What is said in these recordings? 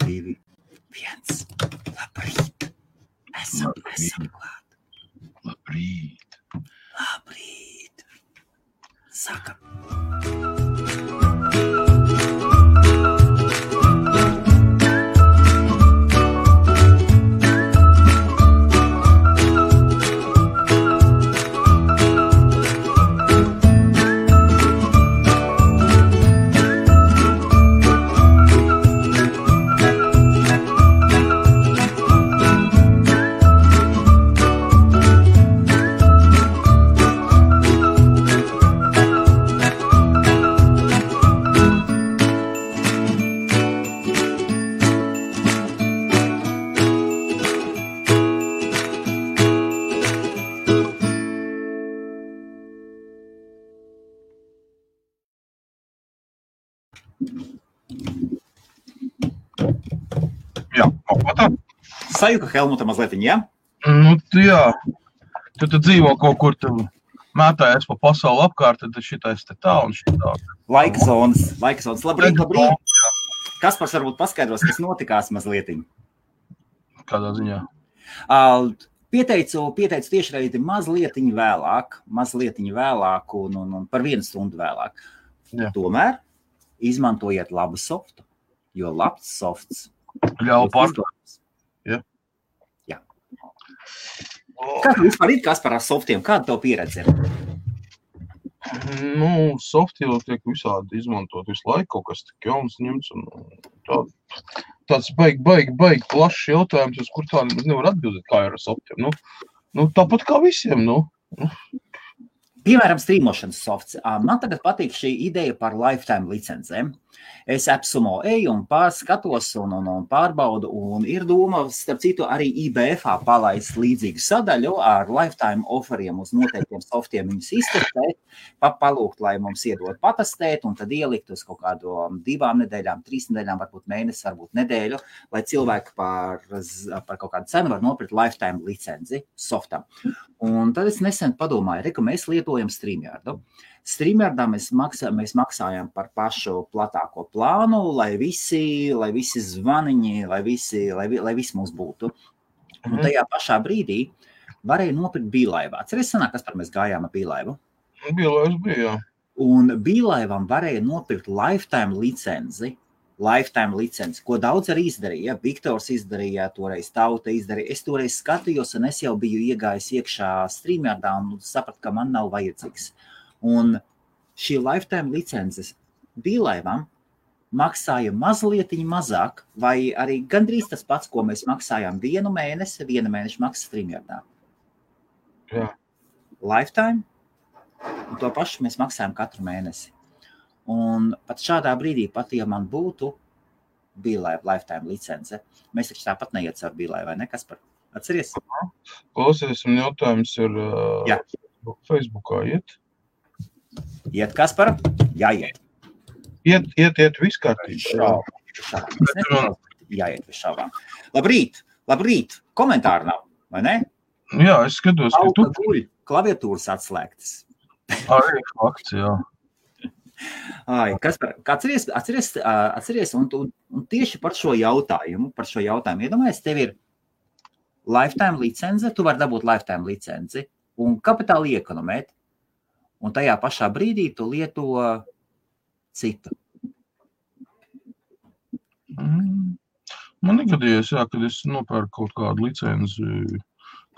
2, 1. Labrīt. Esam klāt. Labrīt. Sākam. Jā, kaut tā. Sajūka Helmuta mazlietiņ, jā? Nu, jā. Tu dzīvo kaut kur, tu mētājies pa pasauli apkārt, tad šitais te tā un šitā. Laika zonas. Labrīt. Kaspars varbūt paskaidros, kas notikās mazlietiņ. Kādā ziņā? Pieteicu tiešraidi mazlietiņ vēlāk un par 1 stundu vēlāk. Jā. Tomēr izmantojiet labu softu, jo labs softs. Ļauj pārdot. Jā. Kā tu vispār ir Kaspar ar softiem? Kāda tev pieredze ir? Nu, softi jau tiek visādi izmantot visu laiku, kaut kas tik jauns ņemts un tāds baigi plašs jautājums, uz kur tā nemaz nevar atbildēt, kā ir ar softiem. Nu, tāpat kā visiem, Piemēram, streamošanas softs. Man tagad patīk šī ideja par lifetime licencēm. Es AppSumo eju un pārskatos un pārbaudu, un ir doma, starp citu, arī IBF-ā palaist līdzīgu sadaļu ar lifetime offeriem uz noteiktiem softiem viņus iztestēt, palūgt, lai mums iedod patestēt, un tad ielikt uz kaut kādu 2 nedēļām, 3 nedēļām, varbūt mēnesi, varbūt nedēļu, lai cilvēki par kaut kādu cenu var nopirkt lifetime licenci softam. Un tad es nesen padomāju, ka mēs lietojam StreamYardu. StreamYardā mēs maksājam par pašu platāko plānu, lai visi zvaniņi, lai visi mums būtu. Un tajā pašā brīdī varēja nopirkt Beelive. Atceries sanāk, kas par mēs gājām ar Beelive? Beelive bija, jā. Un Beelive'am varēja nopirkt lifetime licenci, ko daudz arī izdarīja. Viktors izdarīja, toreiz Tauta izdarīja. Es toreiz skatījos, un es jau biju iegājis iekšā StreamYardā un sapratu, ka man nav vajadzīgs. Un šī lifetime licences Beelive'am maksāja mazlietiņ mazāk, vai arī gandrīz tas pats, ko mēs maksājām 1 mēnesi, 1 mēneša maksa StreamYardā. Jā. Lifetime, un to pašu mēs maksājam katru mēnesi. Un pat šādā brīdī, ja man būtu Beelive lifetime licence, mēs taču tāpat neiet caur Beelive, vai ne, Kaspar? Atceries? Klausies, un jautājums ir Facebookā iet? Iet, Kaspar? Jāiet. Iet viss kārtībā. Jāiet bez šaubām. Labrīt. Komentāri nav, vai ne? Jā, es skatos, ka tu... Klaviatūras atslēgtas. Arī fakts, jā. Kaspar, atceries, un tieši par šo jautājumu, iedomājies, tev ir lifetime licence, tu vari dabūt lifetime licenci un kapitāli iekonomēt, un tajā pašā brīdī tu lieto citu. Man negadījies, jā, kad es nopērku kaut kādu licenci,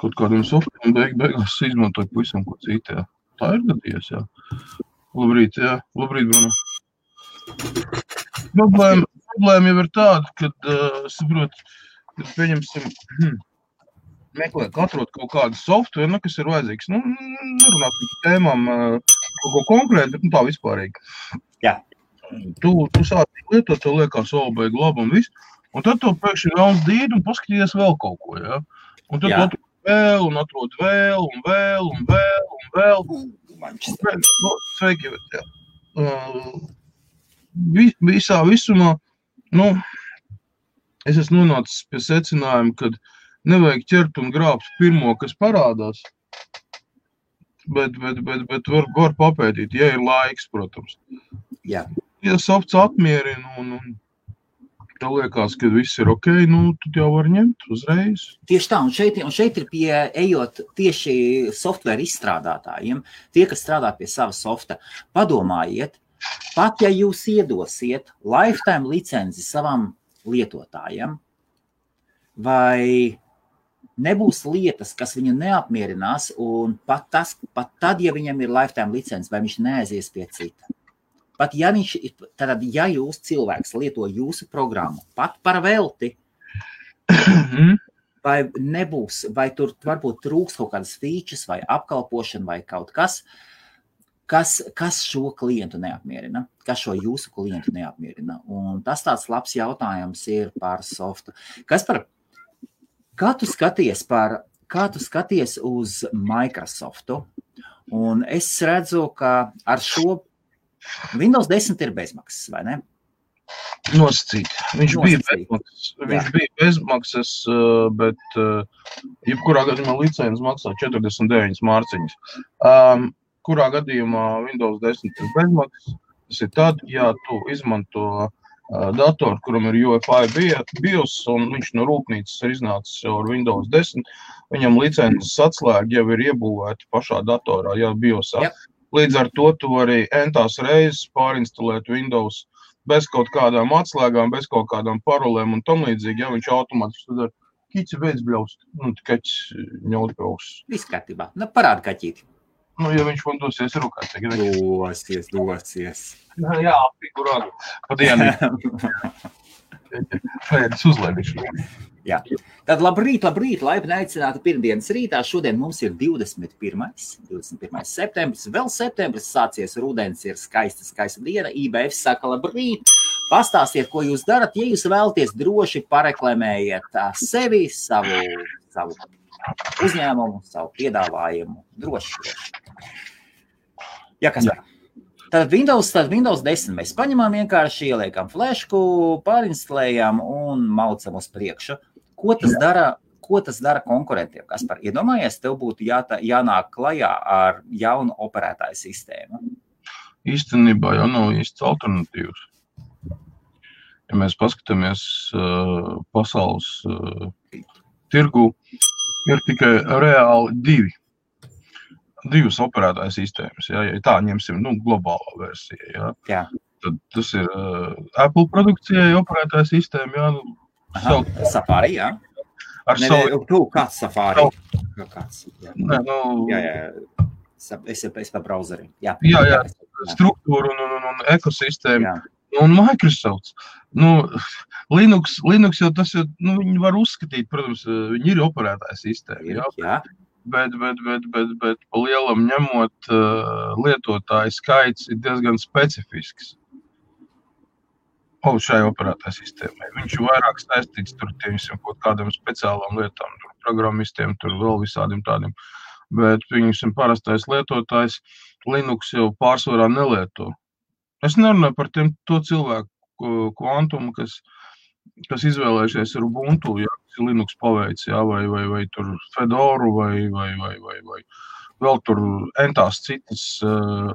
kaut kādiem softiem, beigās izmantoju pavisam ko citu, jā. Tā ir gadījies, jā. Labrīt, Bruno. Problēma jau ir tāda, kad, kad pieņemsim, meklēt, atrod kaut kādu softveru, kas ir vajadzīgs. Nerunāt par tēmām kaut ko konkrēti, bet tā vispārīgi. Jā. Tu sāc lietot, tev liekas baigi labi un viss, un tad tu pēkšņi vēlas dīdi un paskatījies vēl kaut ko, jā. Un tad tu atrod vēl. Sveiki, jā. Visumā, es esmu nonācis pie secinājuma, kad nevajag ķert un grābt pirmo, kas parādās, bet var papētīt, ja ir laiks, protams. Jā. Ja softs apmierina un tev liekas, ka viss ir ok, nu, tad jau var ņemt uzreiz. Tieši tā, un šeit ir ejot tieši software izstrādātājiem, tie, kas strādā pie sava softa, padomājiet, pat ja jūs iedosiet lifetime licenci savam lietotājiem, vai nebūs lietas, kas viņu neapmierinās, un pat tad, ja viņam ir lifetime licence, vai viņš neaizies pie cita. Pat ja jūs cilvēks lieto jūsu programmu, pat par velti, vai nebūs, vai tur varbūt trūks kaut kādas features, vai apkalpošana, vai kaut kas šo klientu neapmierina, kas šo jūsu klientu neapmierina. Un tas tāds labs jautājums ir par softu. Kā tu skaties uz Microsoftu? Un es redzu, ka ar šo Windows 10 ir bezmaksas, vai ne? Nosacīt. Viņš bija bezmaksas, bet jebkurā gadījumā licences maksā 49 mārciņas. Kurā gadījumā Windows 10 ir bezmaksas, tas ir tad, ja tu izmanto datoru, kuram ir UEFI BIOS, un viņš no rūpnīcas ir iznācis ar Windows 10, viņam licences atslēga jau ir iebūvēta pašā datorā, jau BIOSā. Yep. Līdz ar to tu vari entās reizes pārinstalēt Windows bez kaut kādām atslēgām, bez kaut kādām parolēm un tam līdzīgi, ja viņš automātiski tad ar kici beidz bļaust, kaķis ņaut bļaust. Viss kārtībā. Parāda kaķīti. Ja viņš man dosies rukāt. Dosies. Jā, figurāli. Padienī. Šajādas uzlēdišana. Jā. Tad labrīt, laipni aicināti pirmdienas rītā. Šodien mums ir 21. septembris. Vēl septembris sācies, rudens ir skaista diena. IBF saka labrīt. Pastāstiet, ko jūs darat. Ja jūs vēlaties droši pareklamējiet sevi, savu uzņēmumu, savu piedāvājumu. Droši. Jā, kas var? Tad Windows 10 mēs paņemam vienkārši, ieliekam flešku, pārinstalējam un maucam uz priekšu. Ko tas dara konkurentiem? Kaspar, iedomājies, tev būtu jānāk klajā ar jaunu operētāju sistēmu? Īstenībā jau nav īsts alternatīvas. Ja mēs paskatāmies pasaules tirgu, ir tikai reāli divas operētāju sistēmas, ja tā ņemsim, globālā versija, ja. Tad tas ir Apple produkcijai operētāju sistēma, Safari, jā. Kāds Safari? Kāds? Jā. Es pa browseri. Jā, struktūra un ekosistēma. Un Microsoft. Linux jau tas ir, viņi var uzskatīt, protams, viņi ir operētāju sistēma, jā. Bet pa lielam ņemot lietotāju skaits ir diezgan specifisks šai operētāju sistēmai. Viņš ir vairāk saistīts tur kaut kādām speciālām lietām, tur programmistiem, tur vēl visādiem tādiem. Bet viņam parastais lietotājs Linux jau pārsvarā nelieto. Es nerunāju par to cilvēku kvantumu, kas izvēlējušies ar Ubuntu, kas ir Linux paveids, vai tur Fedoru, vai vēl tur entās citas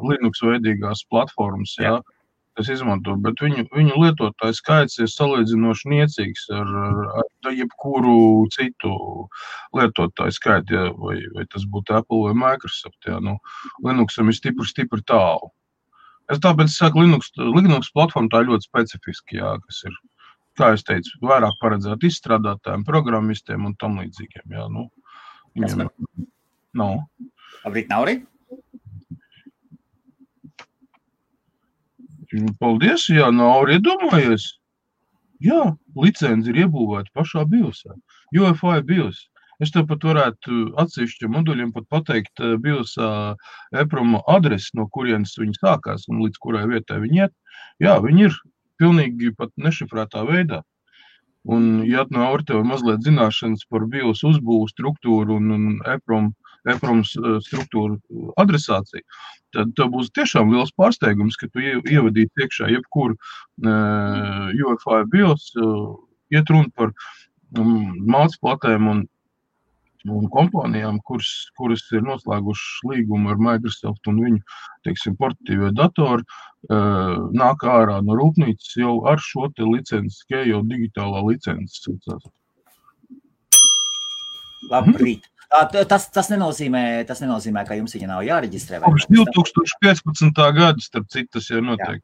Linux veidīgās platformas, kas izmanto, bet viņu lietotāju skaits ir salīdzinoši niecīgs ar jebkuru citu lietotāju skaitu, vai tas būtu Apple vai Microsoft, Linuxam ir stipri tālu. Es tāpēc saku, Linux platforma tā ļoti specifiski, kas ir, kā es teicu, vairāk paredzēt izstrādātājiem, programmistiem un tam līdzīgiem, Viņam nav. Labrīt, Nauri? Paldies, Nauri, iedomājies. Jā, licenci ir iebūvēta pašā BIOSā. UEFI BIOS. Es tev pat varētu atsevišķiem moduļiem pat pateikt BIOSā EPROM adresi, no kurienes viņi sākās un līdz kurai vietai viņi iet. Jā, viņi ir pilnīgi pat nešifrētā veidā. Un, ja Nauri tev mazliet zināšanas par BIOS uzbūvu struktūru un EPROM struktūru adresāciju, tad tev būs tiešām liels pārsteigums, ka tu ievadītu iekšā jebkuru UEFI BIOS, iet runa par mācplatēm un un kompānijām, kuras ir noslēgušas līgumu ar Microsoft un viņu, teiksim, portatīvie datori, nāk ārā no rūpnīcas jau ar šo te licenci, jau digitālā licences. Labrīt. Tas nenozīmē, ka jums viņa nav jāreģistrē. Kopš 2015. gada, starp citu, tas jau notiek.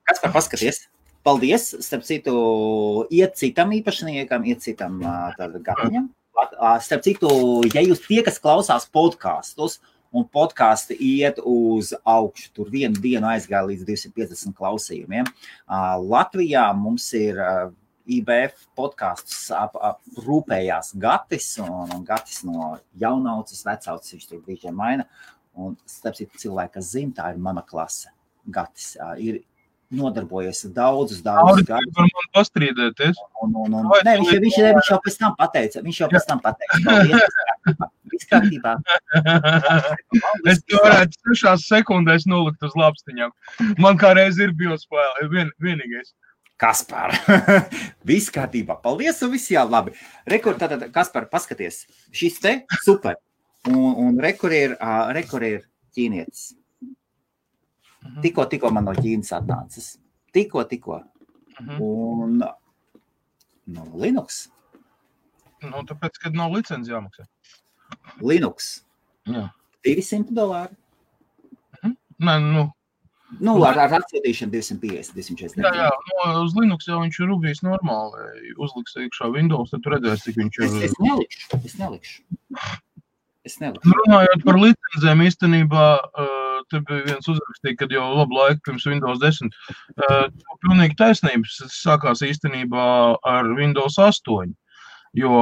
Kas par paskaties? Paldies, starp citu, iet citam īpašniekam, iet citam gatiņam. Starp citu, ja jūs tie, kas klausās podkastus, un podkasti iet uz augšu, tur vienu dienu aizgāja līdz 250 klausījumiem. Latvijā mums ir IBF podkastus rūpējās Gatis, un Gatis no jaunauces, vecauces, viņš tur brīžiem maina. Un starp citu cilvēki, kas zina, tā ir mana klase. Gatis ir nodarbojies daudzus gadus. Var man pastrīdēties? Nē, viņš jau pēc tam pateica. Paldies, viss kārtībā. Es to varētu 6 sekundēs nolikt uz lapstiņām. Man kā reiz ir biospēle, vienīgais. Kaspar, viss kārtībā. Paldies, un viss jā, labi. Rekur, tātad, Kaspar, paskaties. Šis te super. Un rekur ir ķīnietis. Tikko man no Ķīnas atnācis. Tikko. Un no Linux. Tāpēc, kad nav licenci jāmaksā. Linux. Jā. $200. Nē, ar atsūtīšanu 250, 240. Jā, uz Linux jau viņš ir rubījis normāli. Uzliks iekšā Windows, tad tu redzēsi, cik viņš ir. Es nelikšu. Runājot par licenzēm, īstenībā, te bija viens uzrakstīja, kad jau labu laiku pirms Windows 10. Pilnīgi taisnības sākās īstenībā ar Windows 8. Jo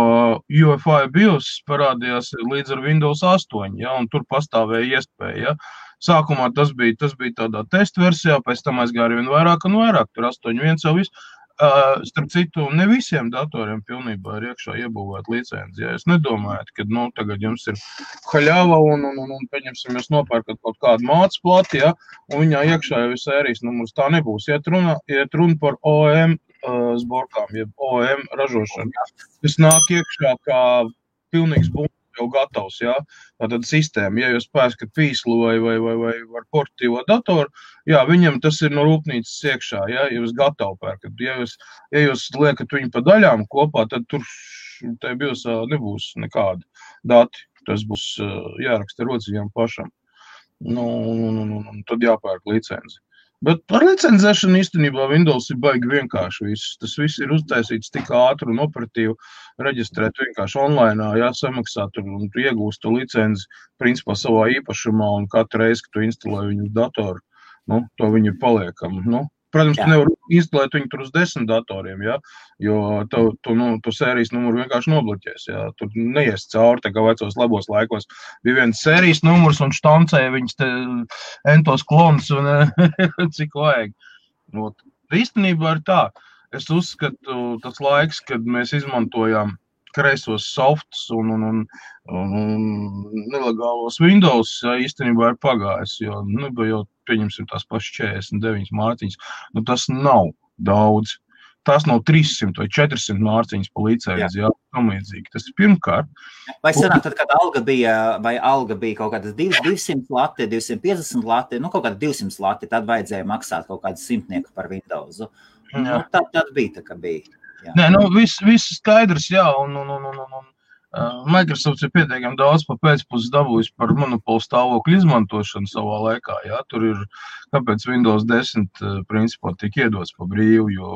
UEFI BIOS parādījās līdz ar Windows 8, ja, un tur pastāvēja iespēja. Ja. Sākumā tas bija tādā testa versijā, pēc tam aizgāja vien vairāk un vairāk, tur 8.1 jau viss. Starp citu, ne visiem datoriem pilnībā ir iekšā iebūvēt licenci. Ja. Es nedomāju, ka tagad jums ir haļava un pieņemsim, jūs nopērkat kaut kādu mācas plati, ja, un viņā iekšā jau ir sērijas numurs. Tā nebūs. Iet runa par OEM zborkām, jeb OEM ražošanu. Tas nāk iekšā kā pilnīgs būs jau gatavs, ja? Tātad sistēma, ja jūs pērkat pīslu vai ar portatīvo datoru, jā, viņam tas ir no rūpnīcas iekšā, ja jūs gatavu pērkat. Ja jūs liekat viņu pa daļām kopā, tad tur tai biosā nebūs nekādi dati. Tas būs jāraksta rociņām pašam. Tad jāpērk licenci. Bet ar licencēšanu īstenībā Windows ir baigi vienkārši viss. Tas viss ir uztaisīts tik ātri un operatīvi, reģistrēt vienkārši online, jāsamaksāt un iegūst to licenci principā savā īpašumā un katru reizi, kad tu instalē viņu uz datoru, to viņi ir paliekami. Protams, tu nevar instalēt viņu tur uz 10 datoriem, ja? Jo tu sērijas numuru vienkārši nobloķēs. Ja? Tur neies cauri, tā kā vecos labos laikos. Bija viens sērijas numurs un štancēja viņas te entos klonus un cik vajag. Īstenībā ir tā. Es uzskatu tas laiks, kad mēs izmantojām kreisos softus un nelegālos Windows īstenībā ir pagājis, jo jau pieņemsim tās pašas 49 mārciņas. Tas nav daudz. Tas nav 300 vai 400 mārciņas pa licenci, jā, tamlīdzīgi. Tas ir pirmkārt. Vai sanāk, tad, kad alga bija kaut kādas 200 lati, 250 lati, kaut kāda 200 lati, tad vajadzēja maksāt kaut kādu 100 par Windows. Tad bija tā, ka bija. Jā. Nē, viss skaidrs, jā, un Microsoft ir pietiekami daudz pa pēcpuses dabūjis par monopolu stāvokļu izmantošanu savā laikā, jā, tur ir, kāpēc Windows 10 principā tiek iedots pa brīvu, jo,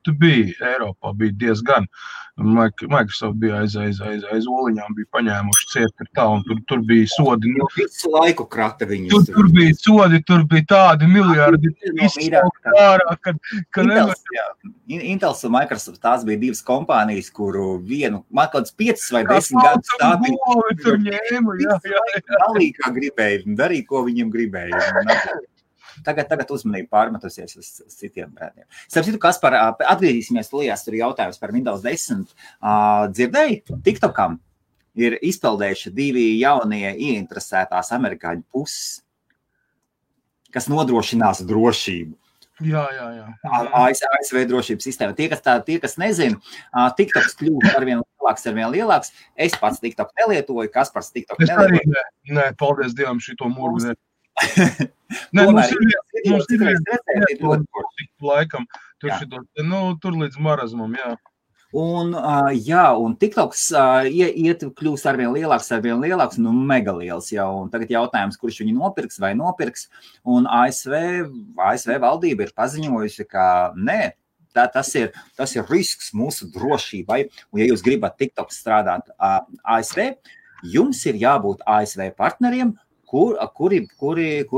tu bija, Eiropā bija diezgan, Microsoft bija aiz oliņām, bija paņēmuši ciet tā, un tur bija sodi. Visu laiku krata viņus. Tur bija sodi, tur bija tādi miljardi, Intels un Microsoft, tās bija divas kompānijas, kuru vienu, man kāds 5 vai 10 gadus stādīja. Tur ņēma, jā. Dalīja, kā gribēja, darīja, ko viņam gribēja. Tagad uzmanību pārmetusies uz citiem brēdiem. Starp citu, Kaspar, atgriezīsimies tulijās, tur jautājums par Windows 10. Dzirdēji, TikTokam ir izpeldējuši 2 jaunie ieinteresētās amerikāņu puses, kas nodrošinās drošību. Jā. ASV drošības sistēma. Tie, kas nezina, TikToks kļūst arvien lielāks. Es pats TikTok nelietoju, Kaspars TikTok Es arī nelietoju. nē, paldies Dievam šito murgu. Mums ir laikam, tur līdz marazmam, jā. Un TikToks kļūst arvien lielāks, mega liels jau. Un tagad jautājums, kurš viņu nopirks vai nopirks. Un ASV valdība ir paziņojusi, ka nē, tas ir risks mūsu drošībai. Un ja jūs gribat TikTok strādāt ASV, jums ir jābūt ASV partneriem, kuri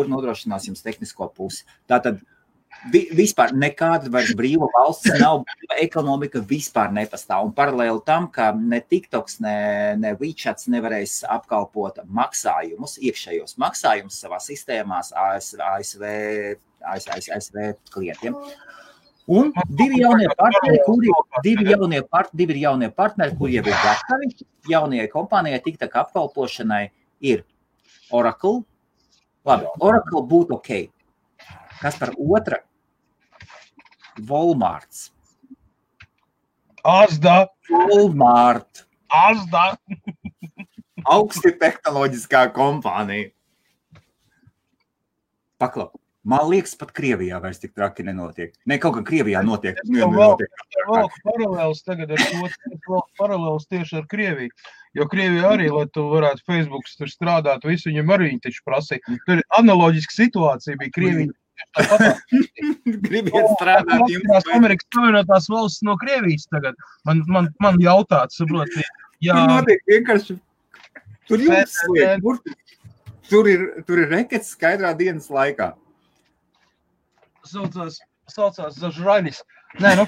nodrošinās jums tehnisko pusi. Tātad vispār nekāda vairs brīva valsts nav, ekonomika vispār nepastāv. Un paralēli tam, ka ne TikToks, ne WeChats nevarēs apkalpot maksājumus, iekšējos maksājumus savā sistēmās ASV klientiem. Un divi jaunie partneri, kuri jau ir gatavi jaunajai kompānijai TikTok apkalpošanai, ir Oracle. Labi, Oracle būtu ok. Kas par otra? Walmarts. Asda. Walmart. Asda. Augsti tehnoloģiskā kompānija. Paklau. Man liekas, pat Krievijā vairs tik traki nenotiek. Ne, kaut kā Krievijā notiek. Vēl paralēls tagad paralēls tieši ar Krieviju. Jo Krievija arī, lai tu varētu Facebooks tur strādāt, visu viņam arī viņi taču prasīja. Tur analoģiska situācija bija Krievija. Gribiet strādāt jums. Amerikas Savienotās valsts no Krievijas tagad. Man jautāt, saprot, jā. Notiek vienkārši. Tur jums liek. Tur ir rekets skaidrā dienas laikā. Saucās Zažraļis. Nē,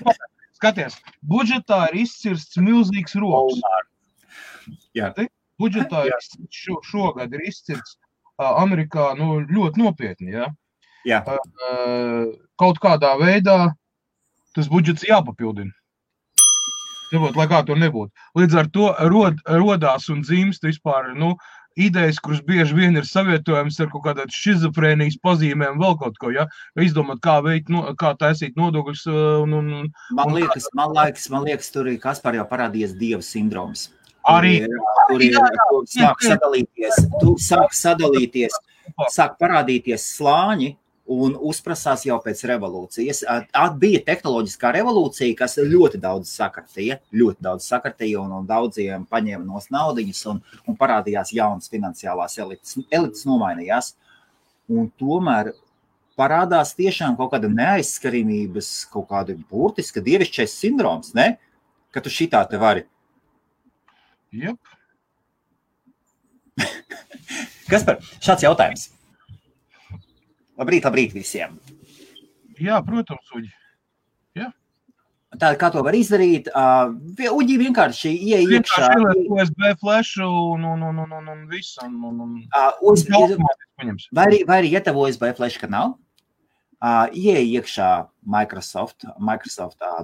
skaties, budžetā ir izcirsts milzīgs roks. Jā. Budžetā šogad ir izcirsts Amerikā ļoti nopietni, jā. Jā. Kaut kādā veidā tas budžets jāpapildina. Lai kā to nebūtu. Līdz ar to rodās un dzimst vispār, idejas, kuras bieži vien ir savietojams ar kaut kādā šizofrēnijas pazīmēm, vēl kaut ko, ja? Izdomāt, kā taisīt nodokļus. Man liekas, tur ir Kaspar jau parādījies dieva sindroms. Arī. Tur sāk sadalīties, sāk parādīties slāņi un uzprasās jau pēc revolūcijas. Bija tehnoloģiskā revolūcija, kas ļoti daudz sakartīja un daudziem paņēma nos naudiņas un parādījās jaunas finansiālās elites. Elites nomainījās. Un tomēr parādās tiešām kaut kāda neaizskarimības, kaut kāda burtiska dievišķais sindroms, ne? Ka tu šitā te vari. Jep. Kaspar, šāds jautājums. Labrīt visiem. Jā, protams, Uģi. Jā. Tātad, kā to var izdarīt? Uģi vienkārši iekšā. USB flashu un visu. Vai arī, ja tev USB flash, ka nav, iekšā Microsoft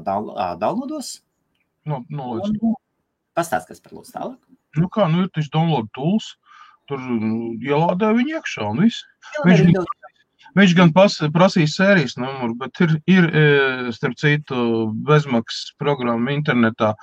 downloados. Pastāst, kas par lūdzu tālāk. Ir taču download tools. Tur ielādē viņu iekšā un viss. Viņš gan prasīs sērijas numuru, bet ir starp citu, bezmaksas programma internetā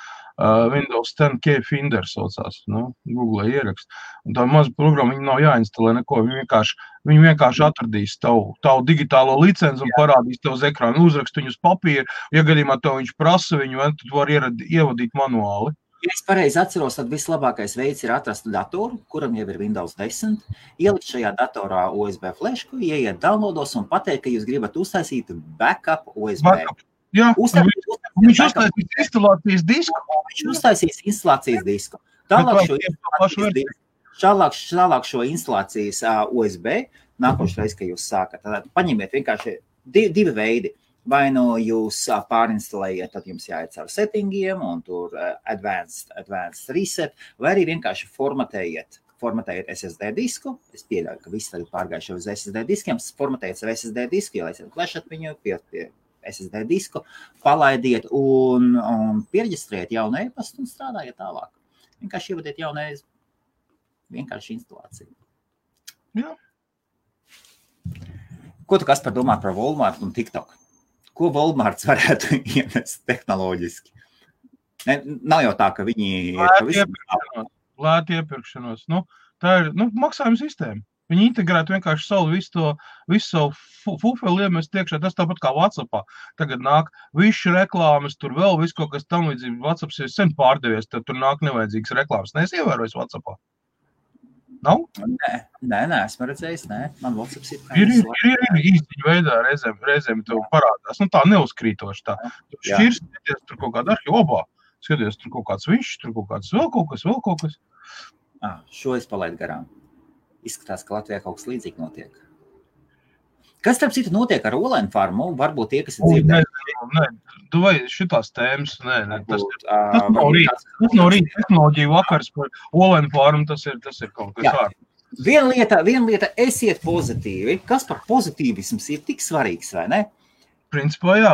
Windows 10 Key Finder saucās, Google ierakst. Un tā maza programma, viņa nav jāinstalē neko, viņi vienkārši atradīs tavu digitālo licenci un parādīs tev uz ekrānu, uzrakst viņu uz papīru. Ja gadījumā tev viņš prasa viņu, tad var ievadīt manuāli. Ja es pareizi atceros, tad vislabākais veids ir atrast datoru, kuram jau ir Windows 10, ielikt šajā datorā USB flashu, ieiet downloados un pateikt, ka jūs gribat uztaisīt backup USB. Jā, viņš uztaisīs instalācijas disku. Viņš uztaisīs instalācijas disku. Tālāk šo instalācijas USB, nākošais, ka jūs sākat. Tad paņemiet vienkārši divi veidi. Vai jūs pārinstalējiet, tad jums jāiet caur settingiem un tur advanced reset, vai arī vienkārši formatējiet SSD disku. Es pieļauju, ka visi tagad pārgājuši uz SSD diskiem. Formatējiet savu SSD disku, ielaisiet flešat viņu pie SSD disku, palaidiet un pierģistrējiet jaunu e-pastu un strādājiet tālāk. Vienkārši ievadiet jaunu vienkārši instalāciju. Jā. Ko tu Kaspar domā par Walmart un TikTok? Ko Walmarts varētu ienest tehnoloģiski? Ne, nav jau tā, ka viņi ir pavisam... Lēti iepirkšanos. Nu, tā ir maksājuma sistēma. Viņi integrētu vienkārši visu savu fufeli iemest iekšā. Tas tāpat kā WhatsAppā. Tagad nāk visu reklāmas, tur vēl visu kaut kas tam līdzīgi. WhatsApps ir sen pārdevies, tad tur nāk nevajadzīgas reklāmas. Neesi ievērojis WhatsAppā? Nav? Nē, esmu redzējis, nē. Man WhatsApps ir īstiņa veidā reizēm tev parādās. Nu tā neuzkrītoši tā. Tu šķirs, skaties tur kaut kāda arhīva, skaties tur kaut kāds višs, tur kaut kāds vēl kaut kas. Šo es palaidu garām. Izskatās, ka Latvijā kaut kas līdzīgi notiek. Kas, starp citu, notiek ar Olainu farmu? Varbūt tie, kas ir dzirdējuši. Nē, tu vai šitās tēmas, nē, tas nav rīt tehnoloģija vakars par Olainu farmu, tas ir kaut kas vārds. Viena lieta, esiet pozitīvi. Kas par pozitīvisms ir tik svarīgs, vai ne? Principā, jā.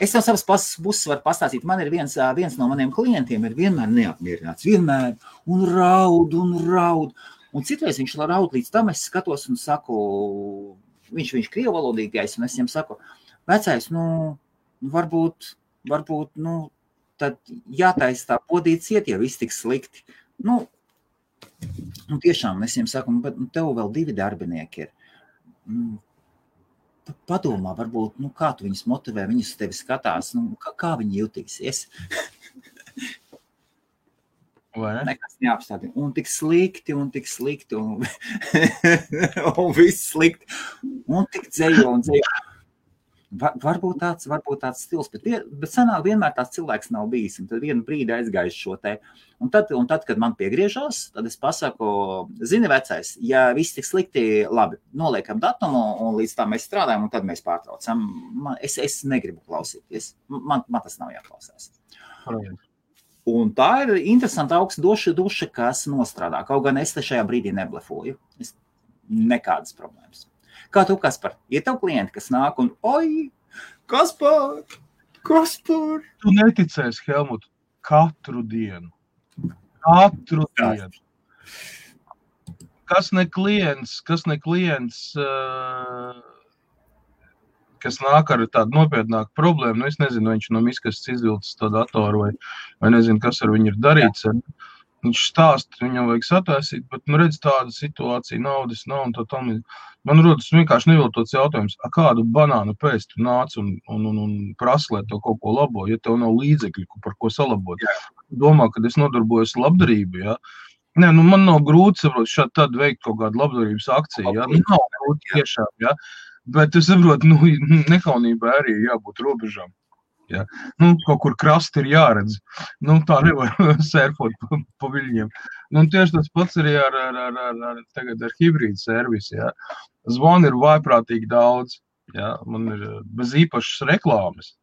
Es no savas puses varu pastāstīt, man ir viens no maniem klientiem ir vienmēr neapmierināts, vienmēr, un raud. Un citreiz viņš raud līdz tam, es skatos un saku, viņš krievalodīgais, un es viņam saku, vecais, varbūt, tad jātais tā podīt ciet, ja viss tik slikti. Tiešām, es viņam saku, bet tev vēl 2 darbinieki ir. Padomā, varbūt, kā tu viņus motivē, viņus tevi skatās, kā viņi jutīsies. Nekas neapstādina. Un tik slikti, un viss slikti, un tik dzējo. Varbūt tāds stils, bet sanāk vienmēr tāds cilvēks nav bijis, un tad vienu brīdi aizgājis šo te. Un tad, kad man piegriežās, tad es pasaku, zini vecais, ja viss tik slikti, labi, noliekam datumu, un līdz tā mēs strādājam, un tad mēs pārtraucam. Es negribu klausīties, man tas nav jāklausās. Un tā ir interesanta augsta duša, kas nostrādā. Kaut gan es te šajā brīdī neblefoju. Nekādas problēmas. Kā tu, Kaspar? Ir tev klienti, kas nāk un, oi, Kaspar! Tu neticēsi, Helmut, katru dienu. Kas ne klients, kas nāk ar tādu nopietnāku problēmu, es nezinu, viņš no miskastes izvilcis to datoru vai nezinu, kas ar viņu ir darīts. Viņš stāst, viņam vajag sataisīt, bet, redz, tāda situācija, naudas nav un tā tam. Man rodas vienkārši neviltots jautājums, kādu banānu pēc tu nāc un prasa, lai tev kaut ko labo, ja tev nav līdzekļu, par ko salabot. Domā, kad es nodarbojos labdarību, ja? Nē, man nav grūti, saprot, šādi tad veikt kaut kādu labdarības akciju, ja? Nav grūti tiešām, ja? Bet es saprotu, nekaunībā arī jābūt robežām. Ja. Kaut kur krasti ir jāredz. Tā nevar sērfot pa viļņiem. Tieši tas pats arī ar hibrīdu servisu. Ja. Zvani ir vājprātīgi daudz. Ja. Man ir bez īpašas reklāmas.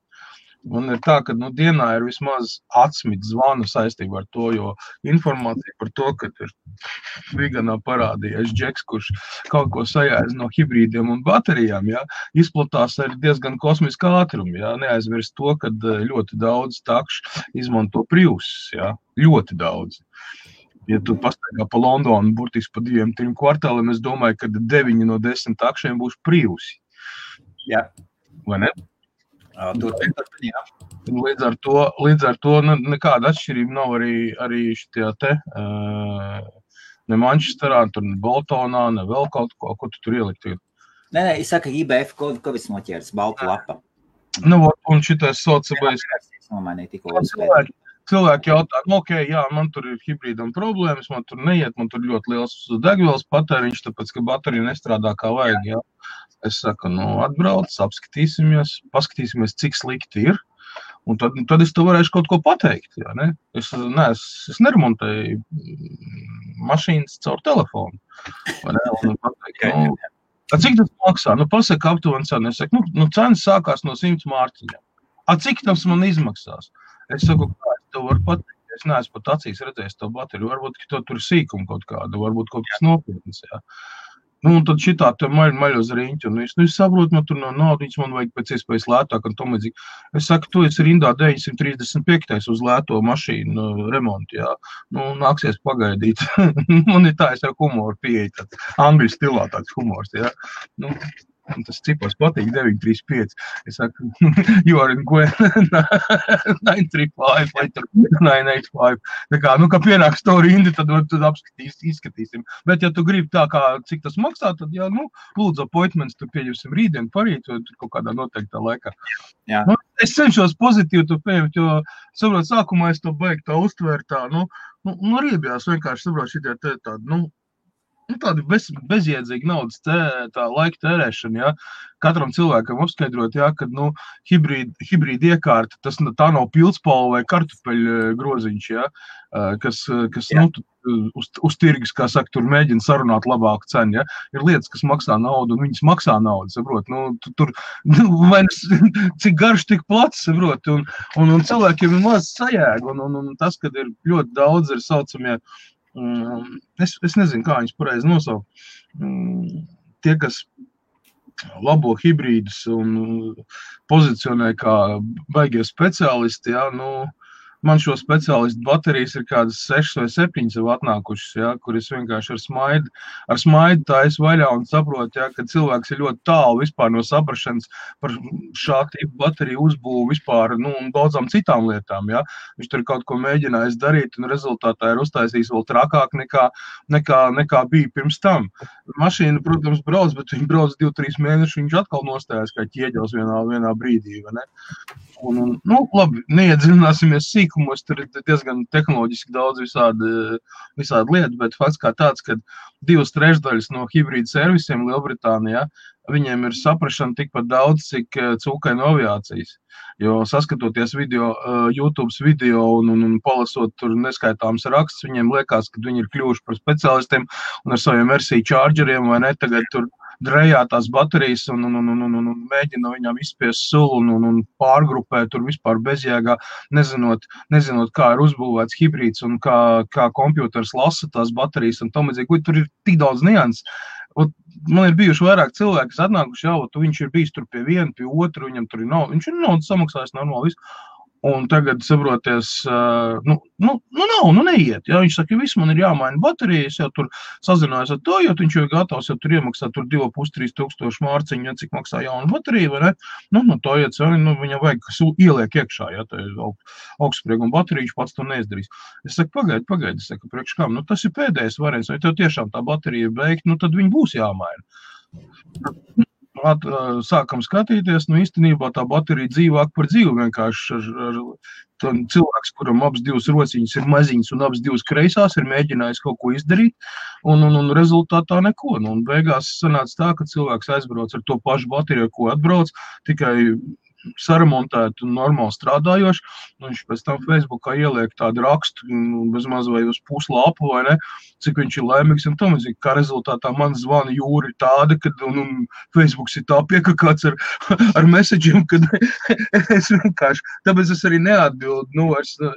Un ir tā, ka dienā ir vismaz 10 zvanu saistībā ar to, jo informācija par to, ka ir Viganā parādījies džeks, kurš kaut ko sajēdz no hibrīdiem un baterijām, ja, izplatās ar diezgan kosmisku ātrumu. Ja. Neaizmirst to, ka ļoti daudz takšu izmanto Prius, ja. Ļoti daudz. Ja tu pastaigā pa Londonu burtiski pa 2-3 kvartāliem, es domāju, ka 9 no 10 takšiem būs Priusi. Jā. Vai ne? Līdz ar to nekāda atšķirība nav arī šitajā te, ne Manchesterā, tur ne Boltonā, ne vēl kaut ko tu tur ielikt. Nē, es saku, IBF kovis noķērs, balta lapa. Un šitais saucamais. Cilvēki jautā, jā, man tur ir hibrīdam problēmas, man tur neiet, man tur ļoti liels degvielas patēriņš, tāpēc, ka baterija nestrādā kā vajag, jā. Es saku, atbrauc, paskatīsimies, cik slikti ir, un tad es tev varēšu kaut ko pateikt, jā, ne? Es neremontēju mašīnas caur telefonu, vai ne? Un pateikt, cik tas maksā? Pasaka aptuveni cenu. Es saku, cenas sākās no 100 mārciņām. Cik tas man izmaksās? Es saku, kā es tev varu pateikt, es neesmu pat acīs redzējis to bateriju, varbūt, ka tur sīkumu kaut kādu, varbūt kaut kas nopietnas, jā. Un tad šitā te maļ uz riņķi, un es saprotu, man tur no naudiņas, man vajag pēc iespējas lētāk, un tom līdzīgi. Es saku, tu esi rindā 935. uz lēto mašīnu remontu, jā. Nāksies pagaidīt. Man ir tā, es ar humoru pieeju, tāds angļu stilā tāds humors, jā. Un tas cipars patīk 935. Es saku, you are in Gwen 935 vai 985. Tā kā, kā pienāks to rindi, tad izskatīsim. Bet, ja tu gribi tā kā, cik tas maksā, tad, jā, lūdzu appointments, tu pieņemsim rītdien, parīt, vai kaut kādā noteiktā laikā. Jā. Es cenšos pozitīvi to pieņemt, jo, saprot, sākumā es to beigtu tā uztvērt tā, riebjās vienkārši, saprot, šitie tādi, tāda bezjēdzīga naudas tā laika tērēšana, ja? Katram cilvēkam apskaidrot, ja, kad, hibrīda iekārta, tā nav pildspalva vai kartupeļu groziņš, ja? Kas uz tirgus, kā saka, tur mēģina sarunāt labāku cenu, ja? Ir lietas, kas maksā naudu, un viņas maksā naudu, saprot, tur, cik garš, tik plats, saprot, un cilvēkiem ir maz sajēga, un tas, kad ir ļoti daudz, ir saucamie, es nezinu, kā viņus pareizi nosaukt. Tie, kas labo hibrīdus un pozicionē kā baigie speciālisti, ja, man šo speciālistu baterijas ir kādas 6 vai 7 jau atnākušas, ja, kur es vienkārši ar smaidu taisu vaļā un saprotu, ja, ka cilvēks ir ļoti tālu vispār no saprašanas par šā tipu bateriju uzbūvu vispār, un daudzām citām lietām, ja. Viņš tur kaut ko mēģinājis darīt un rezultātā ir uztaisījis vēl trakāk nekā bija pirms tam. Mašīna, protams, brauc, bet viņi brauc 2-3 mēnešus, viņš atkal nostājās kā ķieģels vienā brīdī, vai ne? Labi, neiedziļināsimies sīkumos, tur ir diezgan tehnoloģiski daudz visādi lietu, bet fakts kā tāds, ka 2/3 no hibrīda servisiem Lielbritānijā, viņiem ir saprašana tikpat daudz, cik cūkainu aviācijas. Jo saskatoties YouTube video un palasot tur neskaitāms rakstus, viņiem liekas, ka viņi ir kļuvuši par speciālistiem un ar saviem RC chargeriem vai ne, tagad tur drejā tās baterijas un mēģina viņām izspiest sulu un pārgrupēt tur vispār bezjēgā, nezinot, kā ir uzbūvēts hibrīds un kā kompjuters lasa tās baterijas un tam līdzīgi. Tur ir tik daudz nianses. Man ir bijuši vairāk cilvēki, kas atnākuši, viņš ir bijis tur pie viena, pie otru, viņam tur ir nauda, viņš ir naudas samaksājis normāli visu. Un tagad, saproties, neiet, ja, viņš saka, viss man ir jāmaina baterijas, jau tur sazinājās ar to, jo viņš jau ir gatavs, jau tur iemaksā tur 2,5–3 tūkstoši mārciņu, ja cik maksā jauna baterija, vai ne, to iet, viņam vajag ieliek iekšā, ja, tā ir augstsprieguma baterija, viņš pats to neizdarīs. Es saku, pagaidi, es saku, priekš kam, tas ir pēdējais variants, vai tev tiešām tā baterija beigt, tad viņi būs jāmaina. Sākam skatīties, īstenībā tā baterija dzīvāk par dzīvu vienkārši ar cilvēks, kuram abas divas rociņas ir maziņas un abas divas kreisās, ir mēģinājis kaut ko izdarīt un rezultātā neko. Un beigās sanāca tā, ka cilvēks aizbrauc ar to pašu bateriju, ko atbrauc, tikai saremontēt un normāli strādājoši. Viņš pēc tam Facebookā ieliek tādu rakstu, bezmaz vai uz puslapu, vai ne, cik viņš ir laimīgs un tam, kā rezultātā man zvana jūra ir tāda, kad Facebooks ir tā piekakāts ar messageiem, kad es vienkārši, tāpēc es arī neatbildu,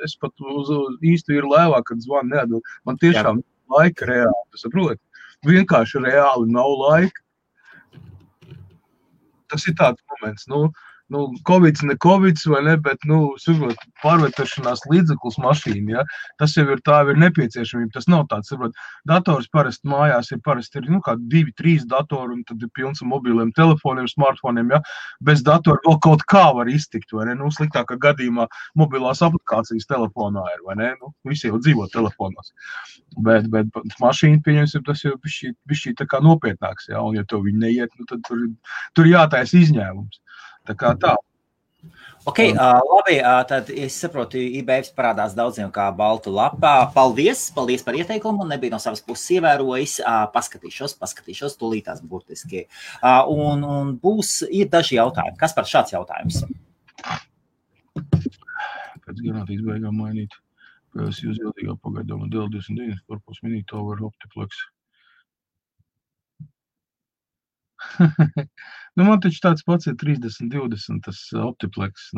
es pat uz īstu ir lēvā, kad zvana neatbildu. Man tiešām laika reāli, tu saproti? Vienkārši reāli nav laika. Tas ir tāds moments, Covids, ne Covids, vai ne, bet, saprot, pārvietošanās līdzeklis mašīna, ja, tas jau ir tā, ir nepieciešamība, tas nav tāds, saprot, dators parasti mājās ir kā 2-3 datori, un tad ir pilns ar mobiliem telefoniem, smartfoniem, ja, bez datora vēl kaut kā var iztikt, vai ne, sliktākā gadījumā mobilās aplikācijas telefonā ir, vai ne, visi jau dzīvo telefonos, bet mašīna, pieņemsim, tas jau bišķī tā kā nopietnāks, ja, un ja tev viņi neiet, tad tur jātais izņēmums. Tā kā tā. Ok, labi, tad es saprotu, IBFs parādās daudziem kā baltu lapā. Paldies par ieteikumu, nebija no savas puses ievērojis. Paskatīšos, tūlītās burtiski. Un ir daži jautājumi. Kas par šāds jautājums? Pēc garantijas beigām mainīt. Es jūs jautīgā pagaidām dēļ 29 korpus minīt over optiplex. Man taču tāds pats ir 30-20, tas optiplex,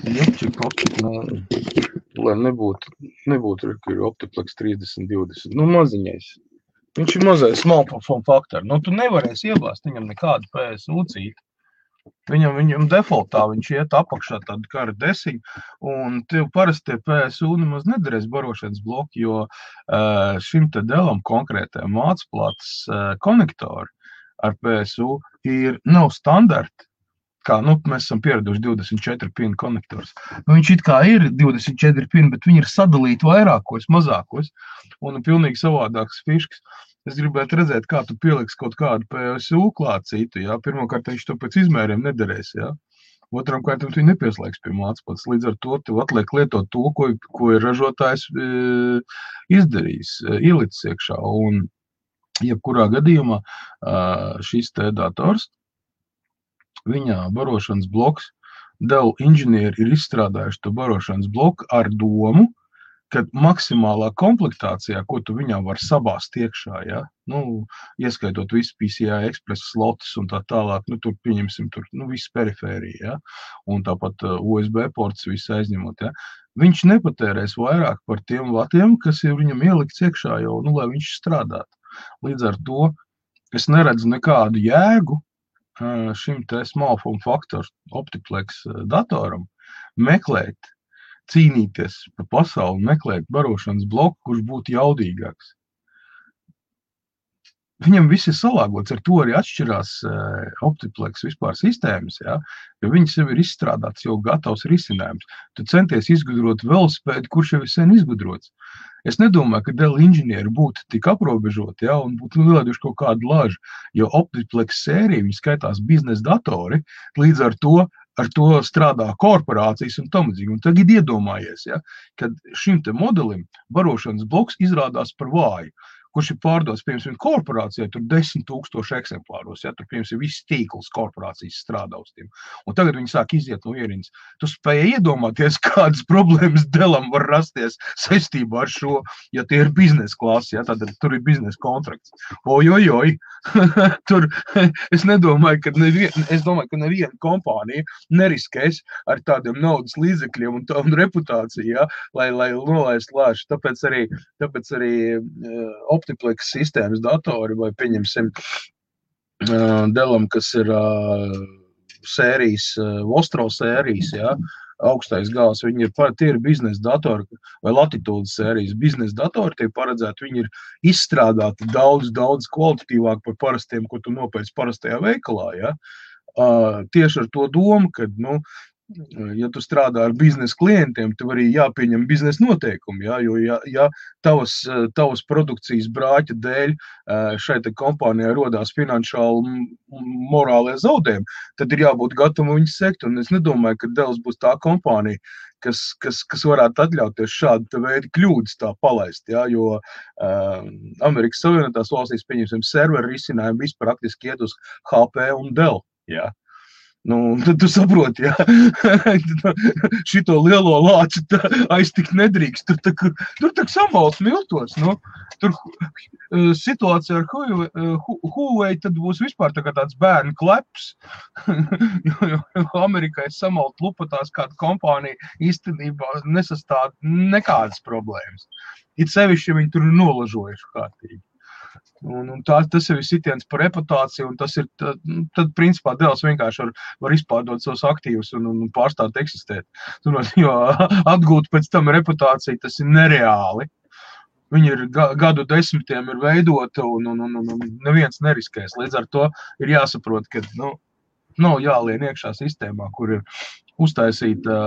Jopčik optiplex, lai nebūtu, ka ir optiplex 30-20, maziņais. Viņš ir mazais small form factor, tu nevarēsi iebāzt viņam nekādu PSU cīti. Viņam defaultā viņš iet apakšā tādu kā ar desiņu, un tev parasti tie PSU nemaz nedarēs barošanas bloki, jo šim te delam konkrētajam mācplātas konektori, ar PSU nav standarti, kā, mēs esam pieraduši 24 pinu konektors. Viņš it kā ir 24 pinu, bet viņi ir sadalīti vairākos, mazākos, un pilnīgi savādāks fiškas. Es gribētu redzēt, kā tu pieliks kaut kādu PSU klāt citu, jā. Pirmkārt, viņš to pēc izmēriem nederēs, jā. Otram kārtam tu nepieslēgs pie mācpots. Līdz ar to tev atliek lietot to, ko ir ražotājs izdarījis, ielicis iekšā. Un jebkurā gadījumā šis te dators, viņa barošanas bloks, Dell inženieri ir izstrādājuši to barošanas bloku ar domu, kad maksimālā komplektācijā, ko tu viņā var sabāzt iekšā, ja? Ieskaitot visu PCI Express slotus un tā tālāk, tur pieņemsim visu perifēriju, ja? Un tāpat USB ports visu aizņemot, ja? Viņš nepatērēs vairāk par tiem vatiem, kas ir viņam ielikts iekšā jau, lai viņš strādātu. Līdz ar to es neredzu nekādu jēgu šim te small form factor Optiplex datoram meklēt, cīnīties pa pasauli, meklēt barošanas bloku, kurš būtu jaudīgāks. Viņam viss ir salāgots, ar to arī atšķirās Optiplex vispār sistēmas, ja? Jo viņas jau ir izstrādāts, jau gatavs risinājums. Tu centies izgudrot velospēdu, kurš jau ir sen izgudrots. Es nedomāju, ka Dell inženieri būtu tik aprobežoti, ja? Un būtu ielaiduši kaut kādu lažu, jo Optiplex sērija, viņi skaitās biznesa datori, līdz ar to strādā korporācijas un tamadzīgi. Un tagad iedomājies, ja, kad šim te modelim barošanas bloks izrādās par vāju, kurš ir pārdots, piemēram, korporācijai, tur 10 000 eksemplāros, ja, tur, piemēram, viss tīkls korporācijas strādā uz tiem. Un tagad viņi sāk iziet no ierindas. Tu spēji iedomāties, kādas problēmas Dellam var rasties saistībā ar šo, ja tie ir biznesa klasi, ja, tad tur ir biznesa kontrakts. Ojojoj, tur, es domāju, ka neviena kompānija neriskēs ar tādiem naudas līdzekļiem un reputāciju, ja, lai nolaist lāšu. Tāpēc arī Optiplex sistēmas datori vai pieņemsim Dellam, kas ir sērijas, Vostro sērijas, ja, augstais gals, tie ir biznesa datori vai latitūdas sērijas biznesa datori, tie paredzēti, viņi ir izstrādāti daudz kvalitatīvāk par parastiem, ko tu nopērci parastajā veikalā, ja. Tieši ar to domu, kad, ja tu strādā ar biznesa klientiem, tev arī jāpieņem biznesa noteikumi, ja, jo ja tavas produkcijas brāķa dēļ šai te kompānijai rodās finanšāli morālie zaudējumi, tad ir jābūt gatavam viņus sekt, un es nedomāju, ka Dells būs tā kompānija, kas varētu atļauties šādu veidu kļūdas tā palaist, ja, jo Amerikas Savienotās valstīs, pieņemsim, serveru risinājumi viss praktiski iet uz HP un Dell, ja. Tad tu saproti, ja, šito lielo lāci aiztikt nedrīkst, tur tak samals miltos, tur situācija ar Huawei tad būs vispār tāds bērnu kleps, jo Amerikai samalt lupatās kāda kompānija īstenībā nesastāv nekādas problēmas. It sevišķi, ja viņi tur ir nolažojuši kārtīgi. Un tas jau ir sitiens par reputāciju, un tas ir, tad principā Dells vienkārši var izpārdot savus aktīvus un pārstāt eksistēt. Jo atgūt pēc tam reputāciju, tas ir nereāli. Viņi ir gadu desmitiem ir veidota un neviens neriskēs. Līdz ar to ir jāsaprot, ka nav jālien iekšā sistēmā, kur ir uztaisīta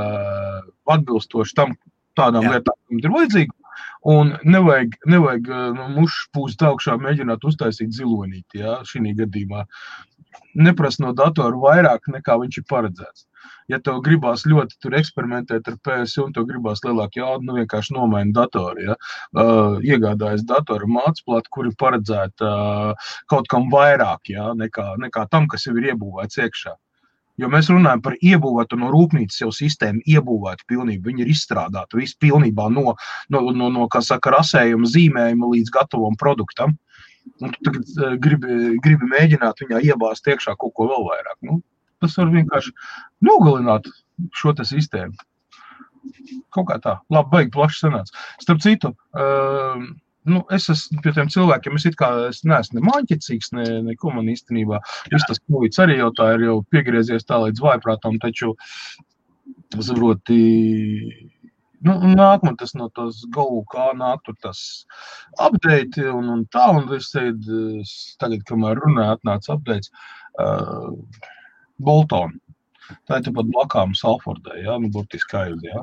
atbilstoši tam tādām lietām, kam ir vajadzīgi. Un nevajag mušas pūst augšā mēģināt uztaisīt zilonīti, ja, šī gadījumā. Neprast no datoru vairāk, nekā viņš ir paredzēts. Ja tev gribās ļoti tur eksperimentēt ar PSU un tev gribās lielāk jaudu, vienkārši nomaini datoru, ja. Iegādājas datoru mācplātu, kur ir paredzēta kaut kam vairāk, ja, nekā tam, kas jau ir iebūvēts iekšā. Jo mēs runājam par iebūvētu no rūpnīcas jau sistēmu, iebūvētu pilnībā, viņi ir izstrādāti visu pilnībā no kā saka, rasējuma zīmējuma līdz gatavam produktam. Un tu tagad gribi mēģināt viņā iebāzt iekšā kaut ko vēl vairāk. Tas var vienkārši nogalināt šo te sistēmu. Kaut kā tā. Labi, baigi plaši sanāca. Starp citu, es esmu pie tiem cilvēkiem, es neesmu ne māņķicīgs, neko man īstenībā. Viss tas Covids arī jau tā ir jau piegriezies tā līdz vājprātam, taču, saproti, nāk man tas no tos Go, kā nāk tur tas update un tā, un es tagad, kamēr runāju, atnāca updates Bolton. Tā ir tāpat blakām Salfordai, jā, burtiski aiz, jā.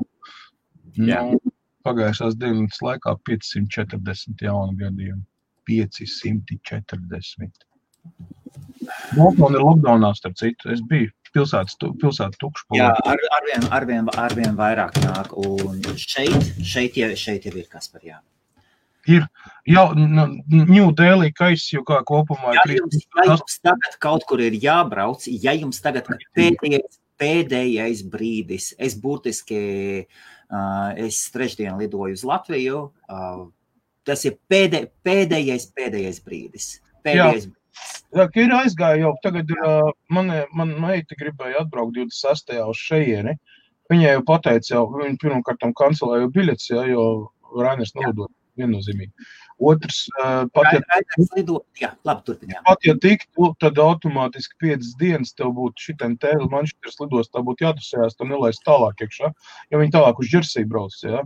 Pagājušās dienas laikā 540 jaunu gadījumu. 540. Bolton ir lockdownā, starp citu. Es biju pilsētu tukšu. Jā, arvien vairāk nāk. Un šeit jau ir kas par jā. Ir jau New Delhi kaiss jau kā kopumā. Ja jums tagad kaut kur ir jābrauc, ja jums tagad pēdējais brīdis, es burtiski, es trešdien lidoju uz Latviju, tas ir pēdējais brīdis. Jā, ka ir aizgāja jau. Tagad man meita gribēja atbraukt 26. uz šejieni. Viņai jau pateica, viņa pirmkārtam kancelēja biļetes, jo Rainers nelido viennozīmīgi. Otrs, pat ja tiktu, tad automātiski 5 dienas tev būtu šitien tēli Manchesteras lidos, tā būtu jātusējās, tev nelaist tālāk iekšā, jo viņi tālāk uz Jersey brauc, jā.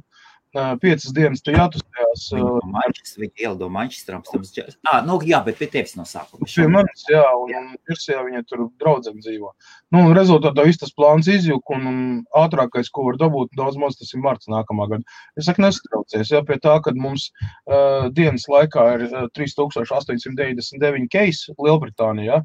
5 dienas te jātusējās. Viņi ielido Manchesteram. Jā, bet pie tevis no sākuma. Pie manis, jā, un Jerseyā viņa tur draudzene dzīvo. Un rezultātā viss tas plāns izjuk, un ātrākais, ko var dabūt, daudz maz tas ir marts nākamā gada. Es saku, nestraucies, jā, pie tā, kad mums dienas laikā ir 3899 case Lielbritānijā.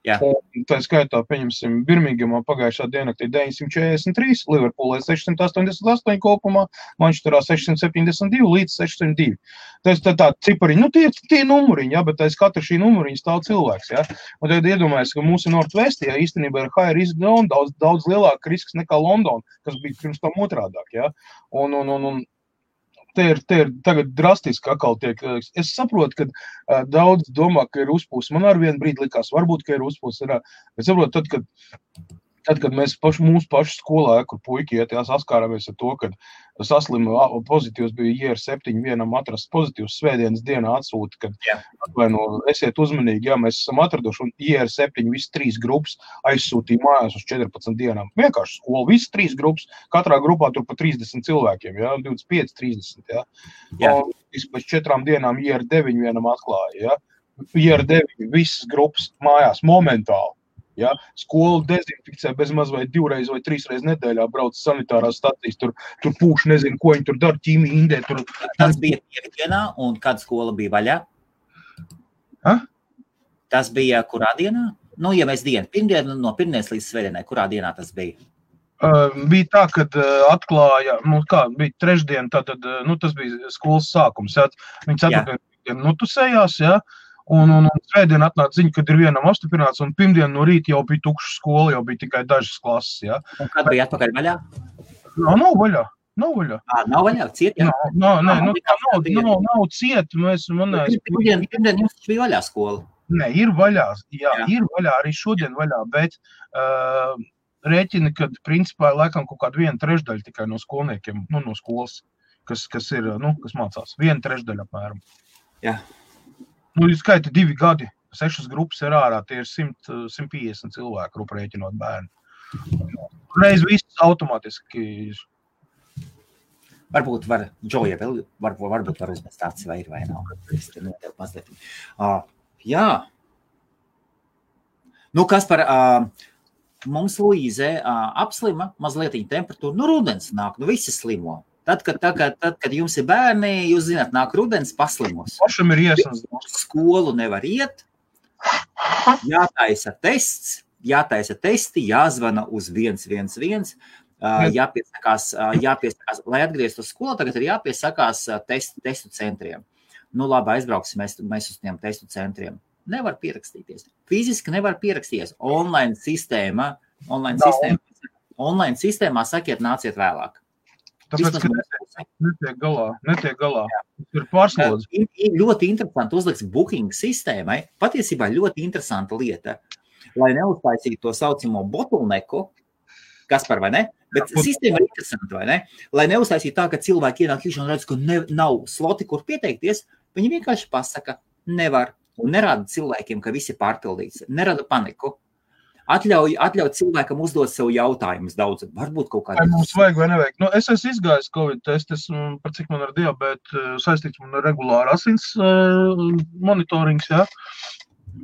Un tā skaitā, pieņemsim, Birmingemā pagājušā diennaktī 943, Liverpoolē 688 kopumā, Manchesterā 672 līdz 602. Tas tā cipariņi, tie numuriņi, jā, bet aiz katra šī numuriņa stāv cilvēks, jā. Un tagad iedomājies, ka mūsu Northwest, jā, īstenībā ir high risk zone, daudz lielāka risks nekā London, kas bija pirms tam otrādāk, jā. Un te ir tagad drastiski atkal tiek. Es saprotu, ka daudz domā, ka ir uzpūs. Man ar vienu brīdi likās, varbūt, ka ir uzpūs. Es saprotu, tad, kad mēs mūsu pašu skolā, kur puiki iet, saskārāmies ar to, kad saslima pozitīvs bija IR7, vienam atrasts pozitīvs svētdienas dienā atsūta, kad esiet uzmanīgi, jā, mēs esam atraduši, un IR7 visas 3 grupas aizsūtīja mājās uz 14 dienām. Vienkārši skola, visas 3 grupas, katrā grupā tur pa 30 cilvēkiem, jā, 25, 30, jā. Un pēc 4 dienām IR9 vienam atklāja, jā. IR9 visas grupas mājās momentāli. Ja, skolu dezinfikcē bez maz vai 2 reizi vai 3 reizes nedēļā brauc sanitārās stacijas, tur pūš, nezinu, ko viņi tur dara, ķīmija, indē. Tas bija piekdienā, un kad skola bija vaļā? Tas bija kurā dienā? Ja mēs pirmdienu, no pirmdienas līdz svētdienai, kurā dienā tas bija? Bija tā, kad atklāja, bija trešdien, tātad, tas bija skolas sākums, viņi ceturtdien notusējās, jā. Un svētdien atnāca ziņa, kad ir vienam apstiprināts, un pirmdien no rīta jau bija tukša skola, jau bija tikai dažas klases, jā. Un kad bija atpakaļ vaļā? Nav vaļā. Nav vaļā, ciet, jā? Nav ciet, Pirmdien jums bija vaļā skola? Nē, ir vaļā, jā, ir vaļā, arī šodien vaļā, bet rēķina, kad principā laikam kaut kāda 1/3 tikai no skolniekiem, no skolas, kas ir, kas mācās, 1/3 apmēram. Jā. Skaita 2 gadi, 6 grupas ir ārā, tie ir 150 cilvēku rēķinot bērnu. Reiz viss automātiski. Varbūt var, Džoja vēl, varbūt var uzmest tāds vai ir vai nav. Es te notev mazliet. Jā. Kas par, mums Luīze apslima, mazliet temperatūra, rudens nāk, visi slimo. Tad, kad jums ir bērni, jūs zināt, nāk rudens paslimos. Pašam ir iesnas. Skolu nevar iet, jātaisa testi, jāzvana uz 111, jāpiesakās, lai atgrieztu uz skolu, tagad ir jāpiesakās testu centriem. Labi, aizbrauksim mēs uz tiem testu centriem. Nevar pierakstīties. Fiziski nevar pierakstīties. Online sistēmā sakiet, nāciet vēlāk. Tāpēc, ka netiek galā. Ir pārslodzi. Ļoti interesanti uzliks booking sistēmai. Patiesībā ļoti interesanta lieta, lai neuztaisītu to saucamo bottleneku, kas par vai ne, bet sistēma ir interesanta, vai ne? Lai neuztaisītu tā, ka cilvēki ienāk iekšā un redz, ka nav sloti, kur pieteikties, viņi vienkārši pasaka, nevar, un nerāda cilvēkiem, ka visi pārpildīts, nerada paniku. Atļauj cilvēkam uzdot sev jautājumus daudz. Varbūt kaut kādā. Vai mums vajag vai nevajag? Nu, es esmu izgājis Covid testu, par cik man ar diabētu saistīts man ar regulāru asins monitorings, jā.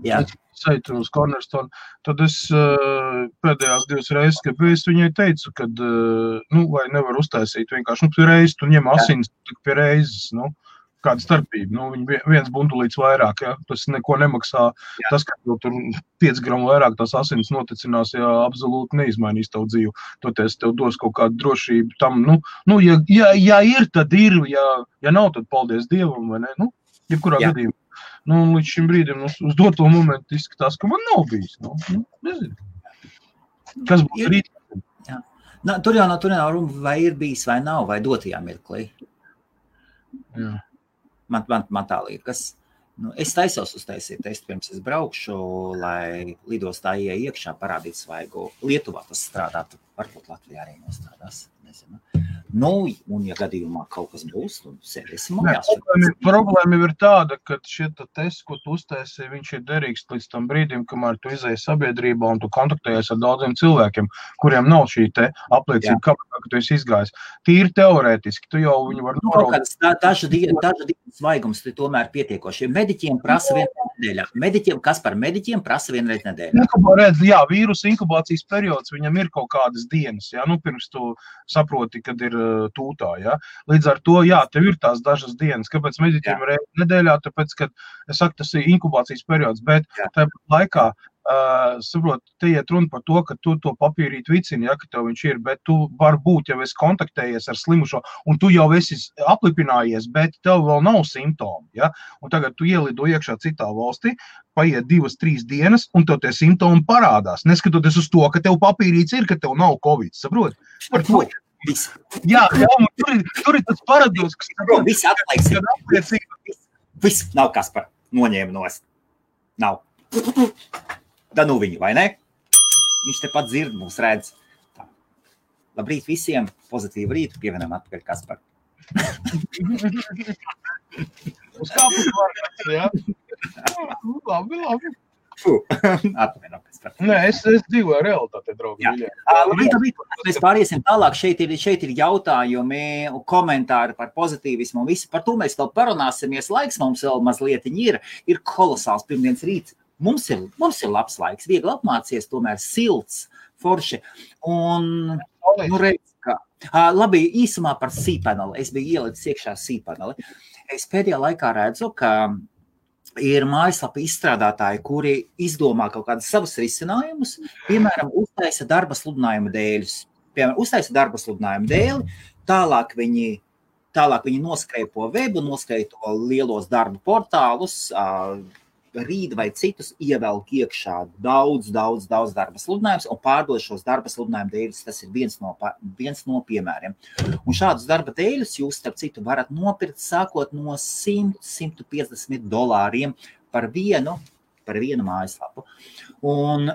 Jā. Es aitu uz Cornerstone. Tad es pēdējās 2 reizes, kad es viņai teicu, kad, vai nevar uztaisīt vienkārši, pie reizes tu ņem asins, tik pie reizes, kāda starpība. Viņi viens bundulīts vairāk, ja? Tas neko nemaksā. Jā. Tas, ka tur 5 gramu vairāk tās asins noticinās, absolūti neizmainīs tavu dzīvi. Toties tev dos kaut kādu drošību tam. Ja ir, tad ir. Ja nav, tad paldies Dievam, vai ne? Jebkurā gadījumā. Līdz šim brīdim uz doto momentu izskatās, ka man nav bijis. Nezinu. Kas būs rīt? Jā. Tur jau nav runa, vai ir bijis, vai nav, vai dotajā mirklī. Jā. Man tā liekas. Es taisos uztaisīt testu, pirms es braukšu, lai lidostā iekšā parādīt svaigu. Lietuvā tas strādātu, varbūt Latvijā arī nostrādās. Nezinu. Un ja gadījumā kaut kas būs, tad sēdēsim mājās. Problēma ir tāda, ka šie tests, ko tu uztaisi, viņš ir derīgs līdz tam brīdim, kamēr tu izēji sabiedrībā un tu kontaktējies ar daudziem cilvēkiem, kuriem nav šī te apliecība, ka tu esi izgājis. Tīri teorētiski, tu jau viņu var noraudīt. Dažu dienu svaigums tu tomēr pietiekoši. Mediķiem prasa vienreiz nedēļā. Kas mediķiem prasa vienreiz nedēļā? Vīrusu inkubācijas periods, viņam ir kaut kādas dienas, pirms tu saproti, kad ir tūtā, Līdz ar to, tev ir tās dažas dienas. Kāpēc mediķiem reiz nedēļā? Tāpēc, ka, es saku, tas ir inkubācijas periods, bet tāpat laikā, saprot, te iet runa par to, ka tu to papīrīt vicini, ka tev viņš ir, bet tu varbūt jau esi kontaktējies ar slimušo, un tu jau esi aplipinājies, bet tev vēl nav simptomi, Un tagad tu ielido iekšā citā valstī, paiet 2-3 dienas, un tev tie simptomi parādās, neskatoties uz to, ka tev papīrīts ir, ka tev nav Covid, saprot? Par to. Jā, tur ir tas paradoks, kas... Viss atlieks. Viss nav kas par noņēmu nost. Nav. Da viņu, vai ne? Viņš tepat dzird mūs redz. Tā. Labrīt visiem, pozitīvu rītu, pievienam atpakaļ Kaspar. Uz kāpus varētu, jā? Labi. Atvaino, Kaspar. Nē, es dzīvoju realitātē, draugi. Labrīt, mēs pāriesim tālāk. Šeit ir jautājumi, komentāri par pozitīvismu un visu. Par to mēs vēl parunāsimies. Laiks mums vēl mazliet ir kolosāls pirmdienas rīts. Mums ir labs laiks, viegli apmācies, tomēr silts, forši. Un, redz, ka... Labi, īsumā par cPaneli. Es biju ielicis iekšā cPaneli. Es pēdējā laikā redzu, ka ir mājaslapa izstrādātāji, kuri izdomā kaut kādus savus risinājumus, piemēram, uztaisa darba sludinājumu dēļus. Tālāk viņi noskreipo webu, noskreipo lielos darba portālus, Rīd vai citus, ievelk iekšā daudz darba sludinājumus un pārdod šos darba sludinājumu dēļus. Tas ir viens no piemēriem. Un šādus darba dēļus jūs, starp citu, varat nopirkt sākot no $100–150 par vienu mājaslapu. Un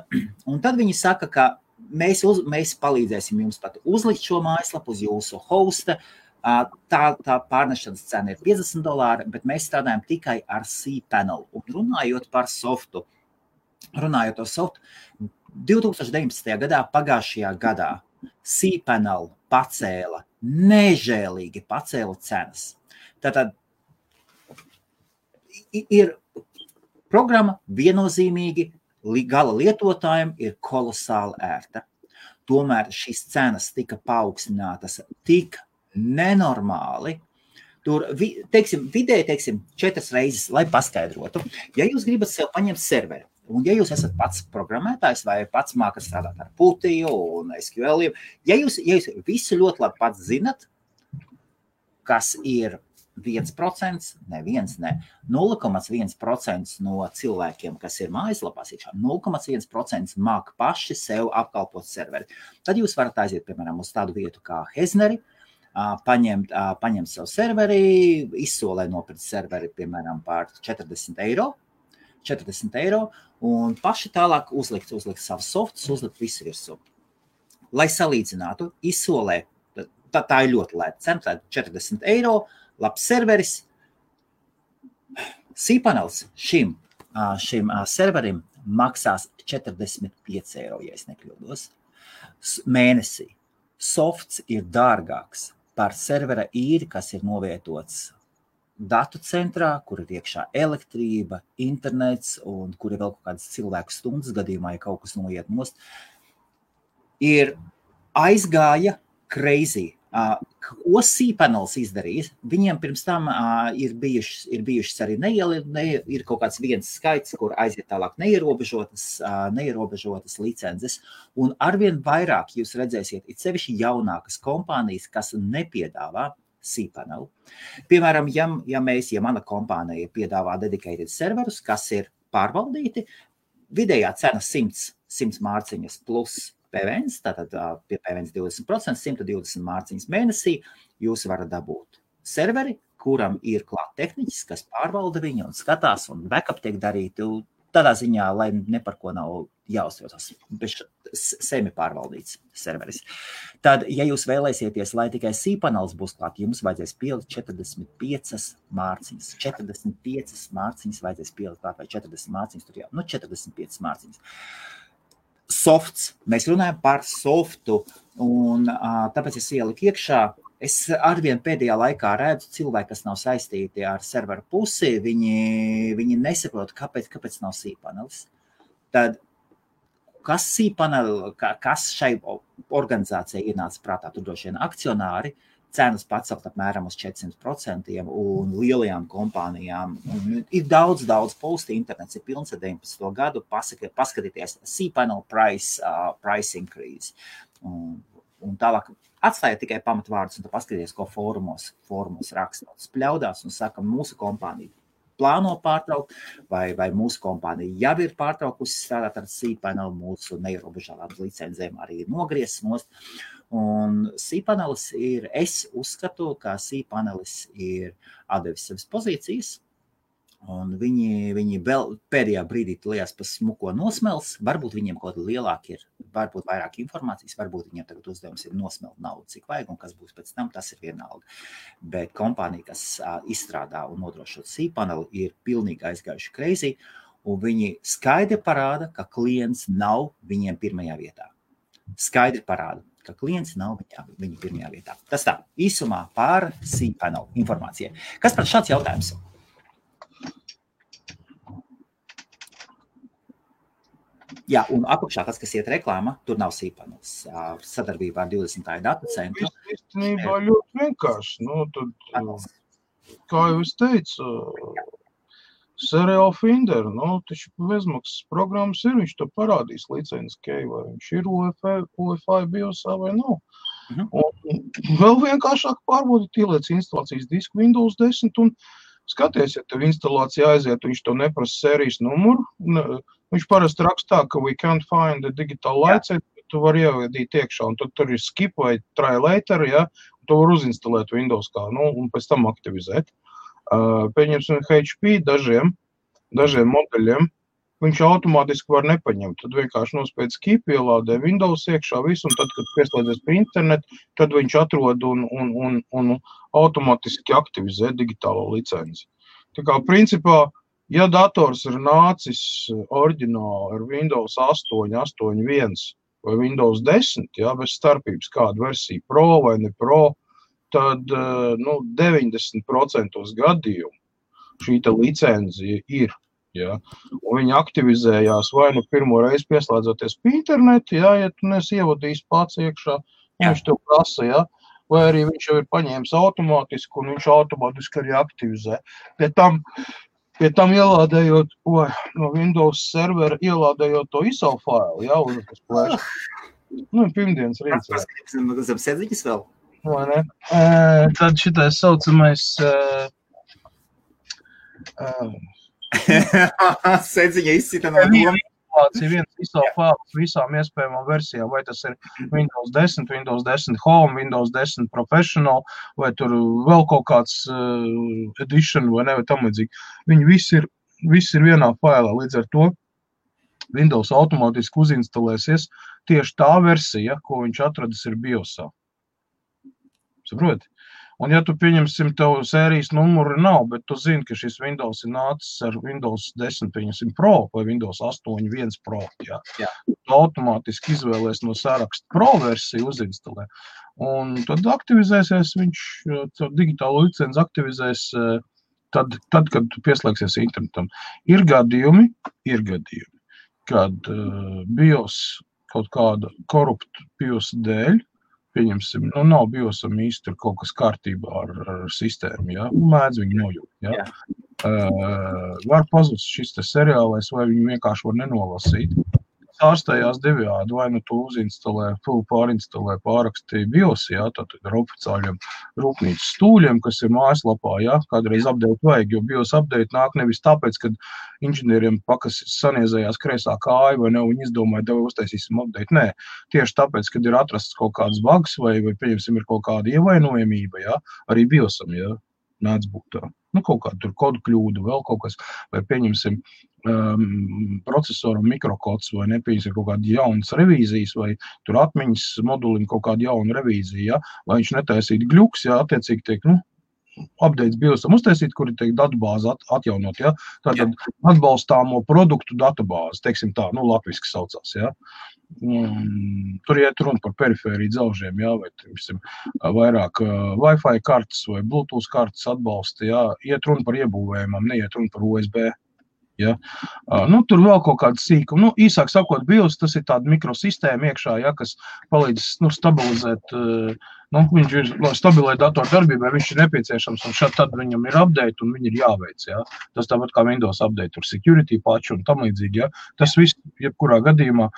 tad viņi saka, ka mēs palīdzēsim jums pat uzlikt šo mājaslapu uz jūsu hosta. Tā pārnešanas cena ir $50, bet mēs strādājam tikai ar cPanel. Un runājot par softu, 2019. gadā, pagājušajā gadā, cPanel nežēlīgi pacēla cenas. Tātad ir programma viennozīmīgi gala lietotājiem ir kolosāli ērta. Tomēr šīs cenas tika paaugstinātas tik nenormāli. Tur, vidēji, 4 reizes, lai paskaidrotu. Ja jūs gribat sev paņemt serveri, un ja jūs esat pats programmētājs vai pats mākat strādāt ar Putiju un SQL, ja jūs visu ļoti labi pats zinat, kas ir 1%, ne 0,1% no cilvēkiem, kas ir mājaslapās iekšā, 0,1% māk paši sev apkalpot serveri. Tad jūs varat aiziet, piemēram, uz tādu vietu kā Hezneri, paņemt savu serveri, izsolē nopirkt serveri, piemēram, par €40, un paši tālāk uzlikt savus softus, uzlikt visu virsū. Lai salīdzinātu, izsolē, tā ir ļoti lēta cena, tā ir €40, labs serveris. cPanels šim serverim maksās 45 eiro, ja es nekļūdos, mēnesī. Softs ir dārgāks par servera īri, kas ir novietots datu centrā, kur ir iekšā elektrība, internets un kur ir vēl kaut kādas cilvēku stundas gadījumā, ja kaut kas noiet nost. Ir aizgāja crazy. Ko cPanels izdarīs? Viņiem pirms tam ir bijušas arī ir kaut kāds viens skaits, kur aiziet tālāk neierobežotas licences, un arvien vairāk jūs redzēsiet, it sevišķi jaunākas kompānijas, kas nepiedāvā cPanel. Piemēram, ja mana kompānija piedāvā dedicated serverus, kas ir pārvaldīti, vidējā cena 100 mārciņas plus PVNs, tātad pie PVNs 20%, 120 mārciņas mēnesī, jūs varat dabūt serveri, kuram ir klāt tehniķis, kas pārvalda viņu un skatās, un backup tiek darīti tādā ziņā, lai ne par ko nav jāuztraucas, bet semi pārvaldīts serveris. Tad, ja jūs vēlēsieties, lai tikai cPanels būs klāt, jums vajadzēs pielikt 45 mārciņas. 45 mārciņas vajadzēs pielikt klāt, vai 40 mārciņas, tur jau, 45 mārciņas. Softs. Mēs runājam par softu, un tāpēc es ieliku iekšā. Es arvien pēdējā laikā redzu cilvēki, kas nav saistīti ar serveru pusi, viņi nesaprot, kāpēc nav cPanelis. Tad, kas cPanel, kas šai organizācijai ienāca prātā, tur droši vien akcionāri, cenas pacelt apmēram uz 400% un lielajām kompānijām. Un ir daudz posti, internets ir pilns ar 19. gadu, paskatieties cPanel price increase. Un tālāk atstājiet tikai pamatvārdus un tad paskatieties, ko fórumos rakstot. Spļaudās un saka, mūsu kompānija plāno pārtraukt, vai mūsu kompānija jau ir pārtraukusi strādāt ar cPanel, mūsu neierobežotām licencēm arī ir nogriezis nost. Un cPanelis es uzskatu, ka cPanelis ir atdevis savas pozīcijas, un viņi vēl pēdējā brīdī lielās pa smuko nosmels, varbūt viņiem kaut lielāk ir, varbūt vairāk informācijas, varbūt viņiem tagad uzdevums ir nosmelt naudu, cik vajag, un kas būs pēc tam, tas ir vienalga. Bet kompānija, kas izstrādā un nodrošina cPaneli, ir pilnīgi aizgājuši crazy, un viņi skaidri parāda, ka klients nav viņiem pirmajā vietā. Skaidri parāda, ka klients nav viņa pirmajā vietā. Tas tā, īsumā par cPanel informācijai. Kas par šāds jautājums? Jā, un apakšā tas, kas iet reklāma, tur nav cPanels. Sadarbībā ar 20. datu centru. Īstenībā ļoti vienkārši. Tad, kā jau es teicu, Serial Finder, taču bezmaksas programmas ir, viņš to parādīs licences key, vai viņš ir UEFI biosā vai nav. Un vēl vienkāršāk pārbaudīt, ieliec instalācijas disku Windows 10 un skaties, ja tev instalācija aiziet, viņš to neprasa sērijas numuru. Viņš parasti rakstā, ka we can't find the digital license, tu vari ievadīt iekšā, un tad tur ir skip vai try later, ja, un tu var uzinstalēt Windows kā, un pēc tam aktivizēt. Pieņemsim HP dažiem modeļiem, viņš automātiski var nepaņemt. Tad vienkārši nospied skip, ielādē Windows iekšā visu, un tad, kad pieslēdzies pie internetu, tad viņš atrod un automātiski aktivizē digitālo licenci. Tā kā, principā, ja dators ir nācis oriģināli ar Windows 8, 8.1 vai Windows 10, bez starpības kādu versiju Pro vai ne Pro, tad 90% gadījumu šī licenzija ir. Ja? Un viņi aktivizējās vai pirmo reizi pieslēdzoties pie internetu, ja tu nesi ievadījis pats iekšā, viņš tev prasa, vai arī viņš jau ir paņēmis automātiski un viņš automātiski arī aktivizē. Pie tam ielādējot no Windows servera, ielādējot to ISO failu, uz tas plēš. Pirmdienas rīts. Zem sēdziņas vēl? Vai ne? Tad šitais saucamais sēdziņa izcita no doma. Viens ISO fails visām iespējamām versijām, vai tas ir Windows 10, Windows 10 Home, Windows 10 Professional, vai tur vēl kaut kāds edition vai tam līdzīgi. Viņi visi ir vienā failā, līdz ar to Windows automātiski uzinstalēsies tieši tā versija, ko viņš atradis ir BIOSā. Saproti? Un ja tu pieņemsim, tev sērijas numuri nav, bet tu zini, ka šis Windows ir nācis ar Windows 10, pieņemsim Pro vai Windows 8.1 Pro, jā. Tu automātiski izvēlies no saraksta Pro versiju uzinstalē. Un tad aktivizēsies viņš, digitālo licenci aktivizēs tad, kad tu pieslēgsies internetam. Ir gadījumi, kad BIOS kaut kāda korupta BIOS dēļ, pieņemsim, nav BIOSam īsti kaut kas kārtībā ar sistēmu, ja? Mēdz viņu nojūt, ja? Var pazust šis te seriālais, vai viņu vienkārši var nenolasīt. Ārstējās divjādi, vai nu tu uzinstalē, pārinstalē, pārakstīja BIOS, jā, tātad ar oficiāļiem rūpnīcas stūļiem, kas ir mājaslapā, jā, kādreiz update vajag, jo BIOS update nāk nevis tāpēc, kad inženieriem pakas saniezējās kreisā kāja, vai ne, viņi izdomāja, tev uztaisīsim update, nē, tieši tāpēc, kad ir atrasts kaut kāds bugs, vai pieņemsim, ir kaut kāda ievainojamība, jā, arī BIOSam, jā, nāc būt tā. Kaut kāda tur kodu kļūda, vēl kaut kas, vai pieņemsim procesoram mikrokods, vai nepieņemsim kaut kāda jaunas revīzijas, vai tur atmiņas modulim kaut kāda jauna revīzija, ja? Lai viņš netaisītu gļuks, ja? Attiecīgi tiek, updates BIOSam uztaisīt, kuri tiek datubāzi atjaunot, ja? Tātad atbalstāmo produktu datubāzi, teiksim tā, latviski saucās, ja? Tur iet runa par perifēriju dzelžiem, jā, vai vairāk Wi-Fi kartes vai Bluetooth kartes atbalsta, jā, iet runa par iebūvējumam, neiet runa par USB. Ja? Tur vēl kaut kāda sīkuma. Īsāk sakot, BIOS tas ir tāda mikrosistēma iekšā, ja, kas palīdz stabilizēt, viņš ir stabilai datoru darbībai, viņš ir nepieciešams, un tad viņam ir update, un viņi ir jāveic. Ja? Tas tāpat kā Windows update, tur security patch un tam līdzīgi. Ja? Tas viss, jebkurā gadījumā,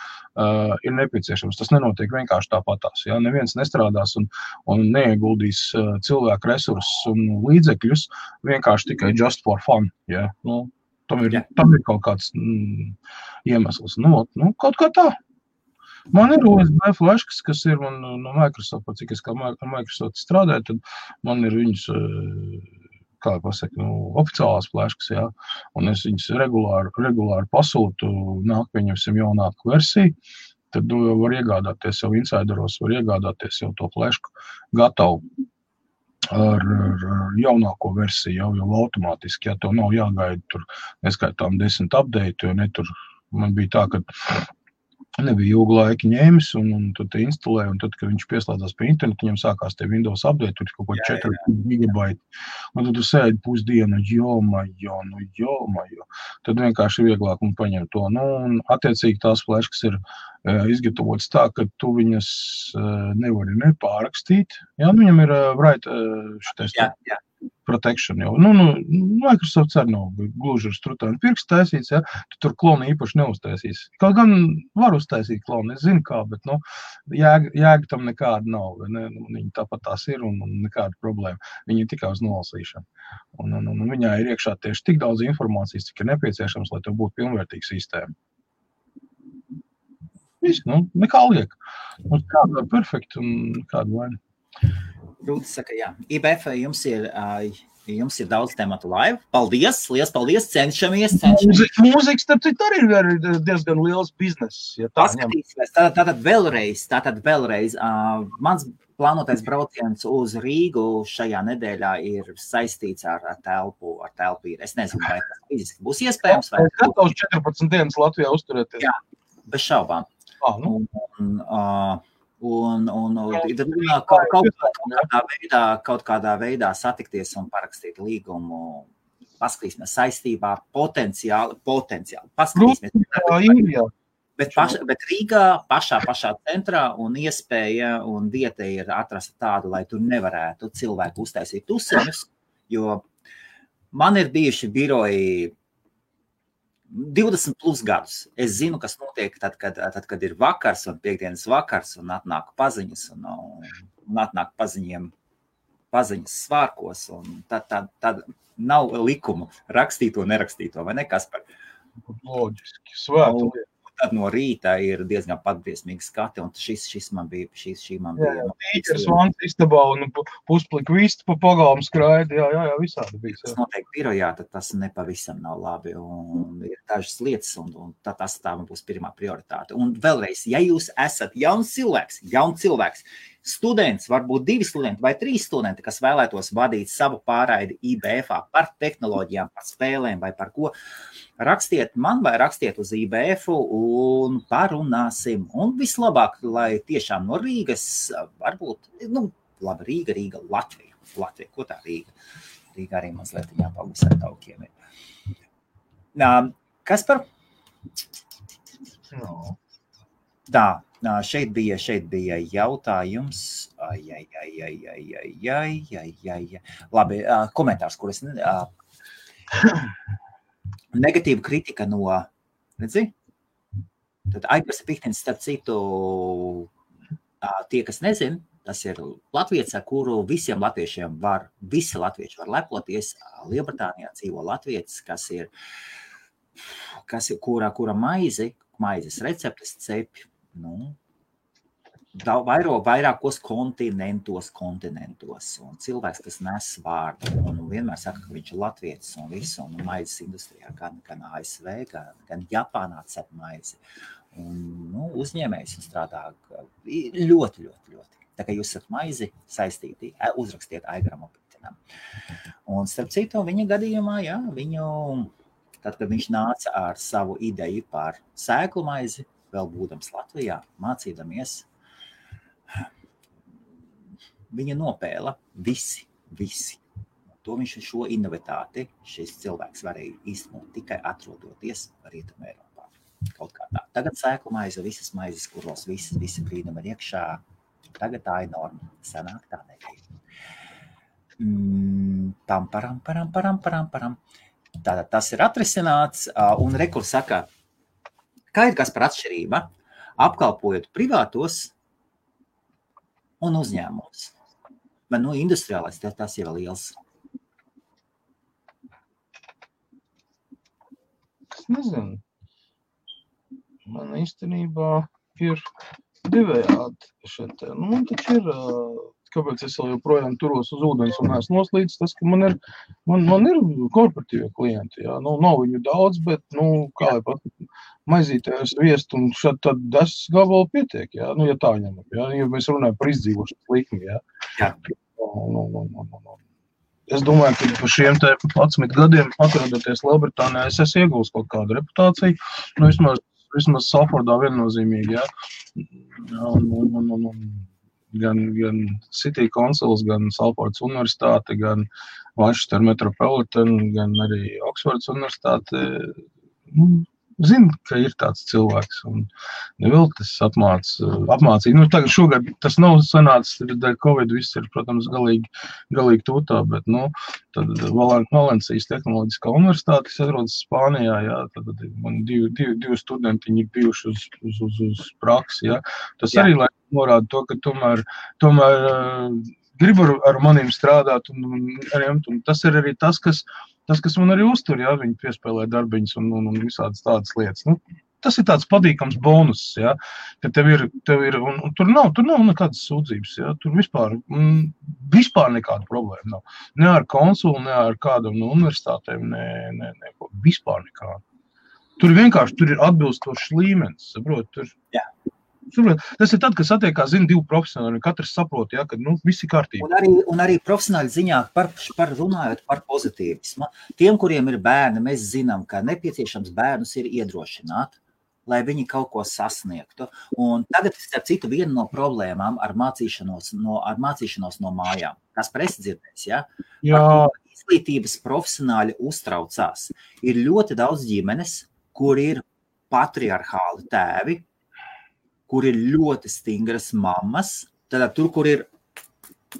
ir nepieciešams. Tas nenotiek vienkārši tāpatās. Ja? Neviens nestrādās un neieguldīs cilvēku resursus un līdzekļus vienkārši tikai just for fun. Ja? Tam ir kaut kāds iemesls. Kaut kā tā. Man ir USB fleškas, kas ir man no Microsoft, cik es kā Microsoft strādāju, tad man ir viņas, kā pasaka, oficiālās fleškas, jā. Un es viņas regulāri pasūtu, nāk pieņemsim jaunāku versiju, tad var iegādāties jau insideros, var iegādāties jau to flešku gatavu. Ar jaunāko versiju jau automātiski, ja to nav jāgaida tur neskaitām 10 update, jo tur man bija tā, ka nebija ilgu laiku ņēmis un tad te instalē, un tad, kad viņš pieslēdzās pie internetu, viņam sākās te Windows update, tur kaut ko 4 gigabaiti, un tad tu sēdi pusdienu, jomajo, tad vienkārši vieglāk un paņem to, un attiecīgi tās fleškas ir izgatavotas tā, ka tu viņas nevari nepārakstīt. Jā, viņam ir šitais protection jau. Microsoft arī nav gluži ar strutainu pirkstu taisīts, ja? Tu tur klonu īpaši neuztaisīs. Kaut gan var uztaisīt klonu, es zinu kā, bet jēga tam nekāda nav. Ne? Viņi tāpat tās ir un nekāda problēma. Viņi ir tikai uz nolasīšanu. Un viņā ir iekšā tieši tik daudz informācijas, cik ir nepieciešams, lai tev būtu pilnvērtīga sistēma. Viss, nekā liek. Mums kāda ir perfekta un kāda vaina. Rūtis saka, jā. IBF jums ir daudz tematu live. Paldies, liels paldies, cenšamies. Mūzika, starp citu, arī ir diezgan liels bizness. Ja paskatīsimies, tātad vēlreiz. Mans plānotais brauciens uz Rīgu šajā nedēļā ir saistīts ar telpu. Es nezinu, vai tas fiziski būs iespējams. Es gatavs 14 dienas Latvijā uzturēties. Jā, bez šaubām. Kaut kādā veidā satikties un parakstīt līgumu, paskatīsimies saistībā, potenciāli. Paskatīsimies. Bet Rīgā pašā centrā un iespēja un vieta ir atrast tādu, lai tur nevarētu cilvēku uztaisīt tuseņus, jo man ir bijuši biroji 20 plus gadus. Es zinu, kas notiek tad, kad ir vakars un piekdienas vakars un atnāk paziņas un atnāk paziņas svārkos un tad nav likumu rakstīto, nerakstīto, vai ne, Kaspar? Loģiski, svētu. Tad no rīta ir diezgan patbriesmīgi skati, un šī man bija. Tīķers vans istabā un pusplika vistu pa pagalmu skraidi, jā, visādi bija. Tas notiek birojā, tad tas nepavisam nav labi, un ir dažas lietas, un tas tā būs pirmā prioritāte. Un vēlreiz, ja jūs esat jauns cilvēks, students, varbūt 2 studenti vai 3 studenti, kas vēlētos vadīt savu pārraidi IBF-ā par tehnoloģijām, par spēlēm vai par ko, rakstiet man vai rakstiet uz IBF-u un parunāsim. Un vislabāk, lai tiešām no Rīgas, varbūt, labi, Rīga, Latvija, ko tā Rīga? Rīga arī mazliet jāpalūs ar taukiem ir. Kas par? No. Tā, šeit bija jautājums. Labi, komentārs, kuras negatīva kritika no, redzi? Tad Aigars Pihtins, starp citu, tie, kas nezin, tas ir latviets, ar kuru visiem latviešiem visi latvieši var lepoties. Lielbritānijā dzīvo latvietis, kura maizes receptes cep, vairākos kontinentos, un cilvēks, kas nes vārdu, un vienmēr saka, ka viņš ir latvietis un visu, un maizes industrijā, gan ASV, gan Japānā cep maizi. Un, uzņēmējs un strādā ļoti. Tā kā jūs esat maizi saistīti, uzrakstiet Aigaram Pitinam. Un starp citu, viņa gadījumā, tad, kad viņš nāca ar savu ideju par sēklu maizi, vēl būdams Latvijā, mācīdamies, viņa nopēla visi. To viņš šo inovatāti, šis cilvēks varēja īstenot tikai atrodoties Rietumē Eiropā. Kaut kā tā. Tagad sēklu maize, visas maizes, kuros visi brīnumi ir iekšā, tagad tā ir norma. Sanāk tā nebija. Param. Tātad tas ir atrisināts, un rekurs saka, kā ir kas par atšķirība, apkalpojot privātos un uzņēmumus. Bet, industriālais, tas jau ir liels. Es nezinu. Man īstenībā ir divējādi šeit. Man taču ir, kāpēc es vēl joprojām turos uz ūdens un esmu noslīdis, tas, ka man ir korporatīvie klienti, jā. Nav viņu daudz, bet, kā lai pat maizītājs viest un šad tad 10 gabalu pietiek, jā. Ja tā ņemam, jā. Ja mēs runājam par izdzīvošanas likmi, jā. Jā. Es domāju, ka par šiem 11 gadiem atrodoties Lielbritānijā, es esmu iegūst kaut kādu reputāciju, vismaz Salfordā viennozīmīgi, jā. Gan City Councils, gan Salfordas universitāte, gan Manchester Metropolitan, gan arī Oksfordas universitāte, zinu, ka ir tāds cilvēks, un neviltis apmācīja. Tagad šogad tas nav sanācis, dēļ Covid viss ir, protams, galīgi tūtā, bet, tad Valencijas tehnoloģiskā universitāte, kas atrodas Spānijā, jā, tad man divi studentiņi ir bijuši uz praksi, jā. Tas arī, lai norāda to, ka tomēr grib ar maniem strādāt, un tas ir arī tas, kas man arī uztur, jā, viņi piespēlē darbiņas un visādas tādas lietas. Tas ir tāds padīkams bonus, jā, ka tev ir un tur nav nekādas sūdzības, jā, tur vispār nekāda problēma nav. Ne ar konsulu, ne ar kādam no universitātēm, vispār nekāda. Tur ir atbilstošs līmenis, saprot, tur. Jā. Tas ir tad, kad satiekās, divi profesionāļi, katrs saprot, ja, ka visi kārtībā. Un arī profesionāļi ziņā runājot par pozitīvismu. Tiem, kuriem ir bērni, mēs zinām, ka nepieciešams bērnus ir iedrošināt, lai viņi kaut ko sasniegtu. Un tagad, starp citu, viena no problēmām ar mācīšanos no mājām. Kas presi dzirdēs, ja? Jā. Izglītības profesionāļi uztraucās. Ir ļoti daudz ģimenes, kur ir patriarchāli tēvi, kur ir ļoti stingras mammas, tad tur, kur ir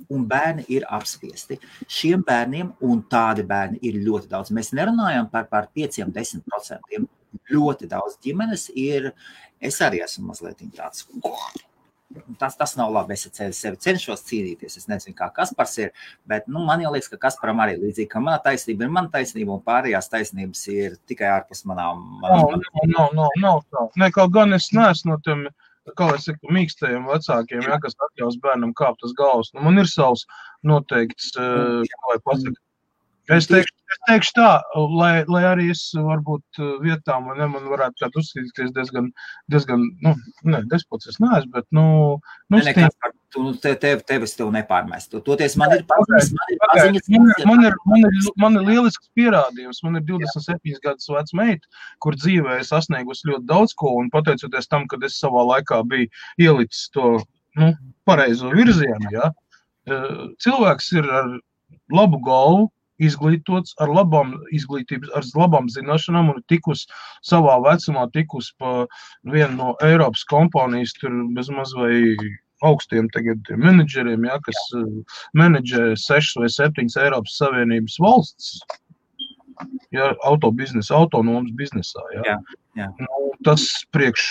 un bērni ir apspiesti. Šiem bērniem un tādi bērni ir ļoti daudz. Mēs nerunājam par 5-10%. Ļoti daudz ģimenes ir, es arī esmu mazliet tāds, tas nav labi, es sevi cenšos cīnīties, es nezinu, kā Kaspars ir, bet man jau liekas, ka Kasparam arī līdzīgi, ka mana taisnība ir mana taisnība un pārējās taisnības ir tikai ārpus manām. Nav. Ne, kaut gan es neesmu no tiem, kā es saku, mīkstajiem vecākiem, ja, kas atļaus bērnam kāpt uz galvas. Man ir savs noteikts, kā lai pasaka. Es teikšu tā, lai arī es varbūt vietām, man varētu tādu uzskatīties diezgan despots es neesmu, bet, tevis tev nepārmestu. Toties man ir paziņas. Man ir lielisks pierādījums. Man ir 27 gadus veca meita, kur dzīvē es sasniegusi ļoti daudz ko, un pateicoties tam, kad es savā laikā biju ielicis to pareizo virzienu, ja, cilvēks ir ar labu galvu, izglītots, ar labām izglītības, ar labām zināšanām un tikus savā vecumā, tikus pa vienu no Eiropas kompānijas, tur bezmaz vai augstiem tagad menedžeriem, ja, kas menedžē 6 vai 7 Eiropas Savienības valsts, ja, autonomas biznesā. Ja. Jā. Nu, tas priekš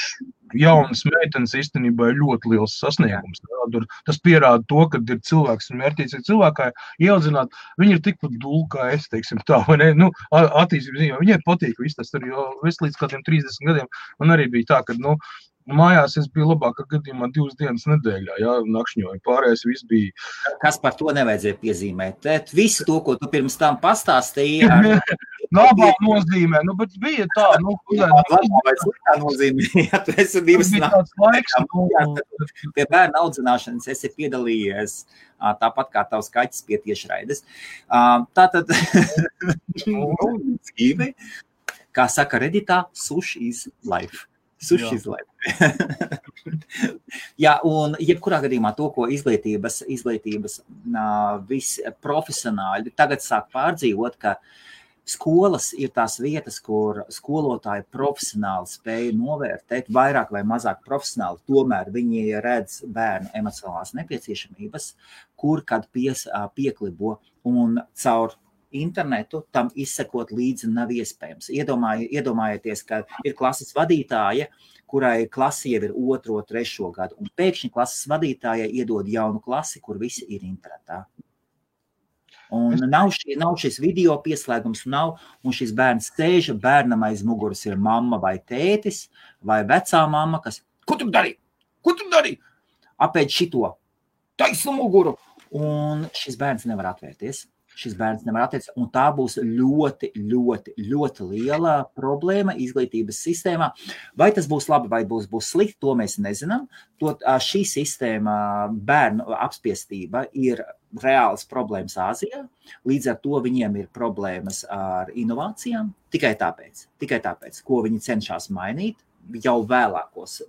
jaunas meitenes īstenībā ir ļoti liels sasniegums. Ja. Tas pierāda to, ka ir cilvēks un mērķīgs cilvēkai ieaudzināt, viņi ir tikpat dūli, kā es, teiksim tā, vai ne? Nu, attīstības ziņā, viņai patīk viss tas tur, jo es līdz kādiem 30 gadiem, man arī bija tā, ka, mājās es biju labākā gadījumā 2 dienas nedēļā, ja, nakšņoju, pārējais viss bija. Kas par to nevajadzēja piezīmēt? Visu to, ko tu pirms tam pastāstīji. Labā nozīmē, bet bija tā, labā vai sliktā nozīmē, ja tu esi 2 naktas. Pie bērna audzināšanas esi piedalījies, tāpat kā tavs kaķis pie tiešraides. Tātad, dzīve, kā saka Redditā, sush is life. Sushi is life. Jā, un jebkurā gadījumā to, ko izglītības visi profesionāļi tagad sāk pārdzīvot, ka skolas ir tās vietas, kur skolotāji profesionāli spēja novērtēt, vairāk vai mazāk profesionāli, tomēr viņi redz bērnu emocionālās nepieciešamības, kur kad pieklibo un caur internetu tam izsekot līdzi nav iespējams. Iedomājieties, ka ir klases vadītāja, kurai klasi jau ir 2., 3. gadu, un pēkšņi klases vadītājai iedod jaunu klasi, kur visi ir internetā. Un nav šis video pieslēgums, un šis bērns sēž, bērnam aiz muguras ir mamma vai tētis, vai vecā mamma, kas, ko tu dari? Apēd šito, taisnu muguru, un šis bērns nevar atvērties. Un tā būs ļoti, ļoti, ļoti liela problēma izglītības sistēmā. Vai tas būs labi, vai būs slikti, to mēs nezinām. Šī sistēma, bērnu apspiestība, ir reāls problēmas Āzijā. Līdz ar to viņiem ir problēmas ar inovācijām. Tikai tāpēc, ko viņi cenšas mainīt jau vēlākās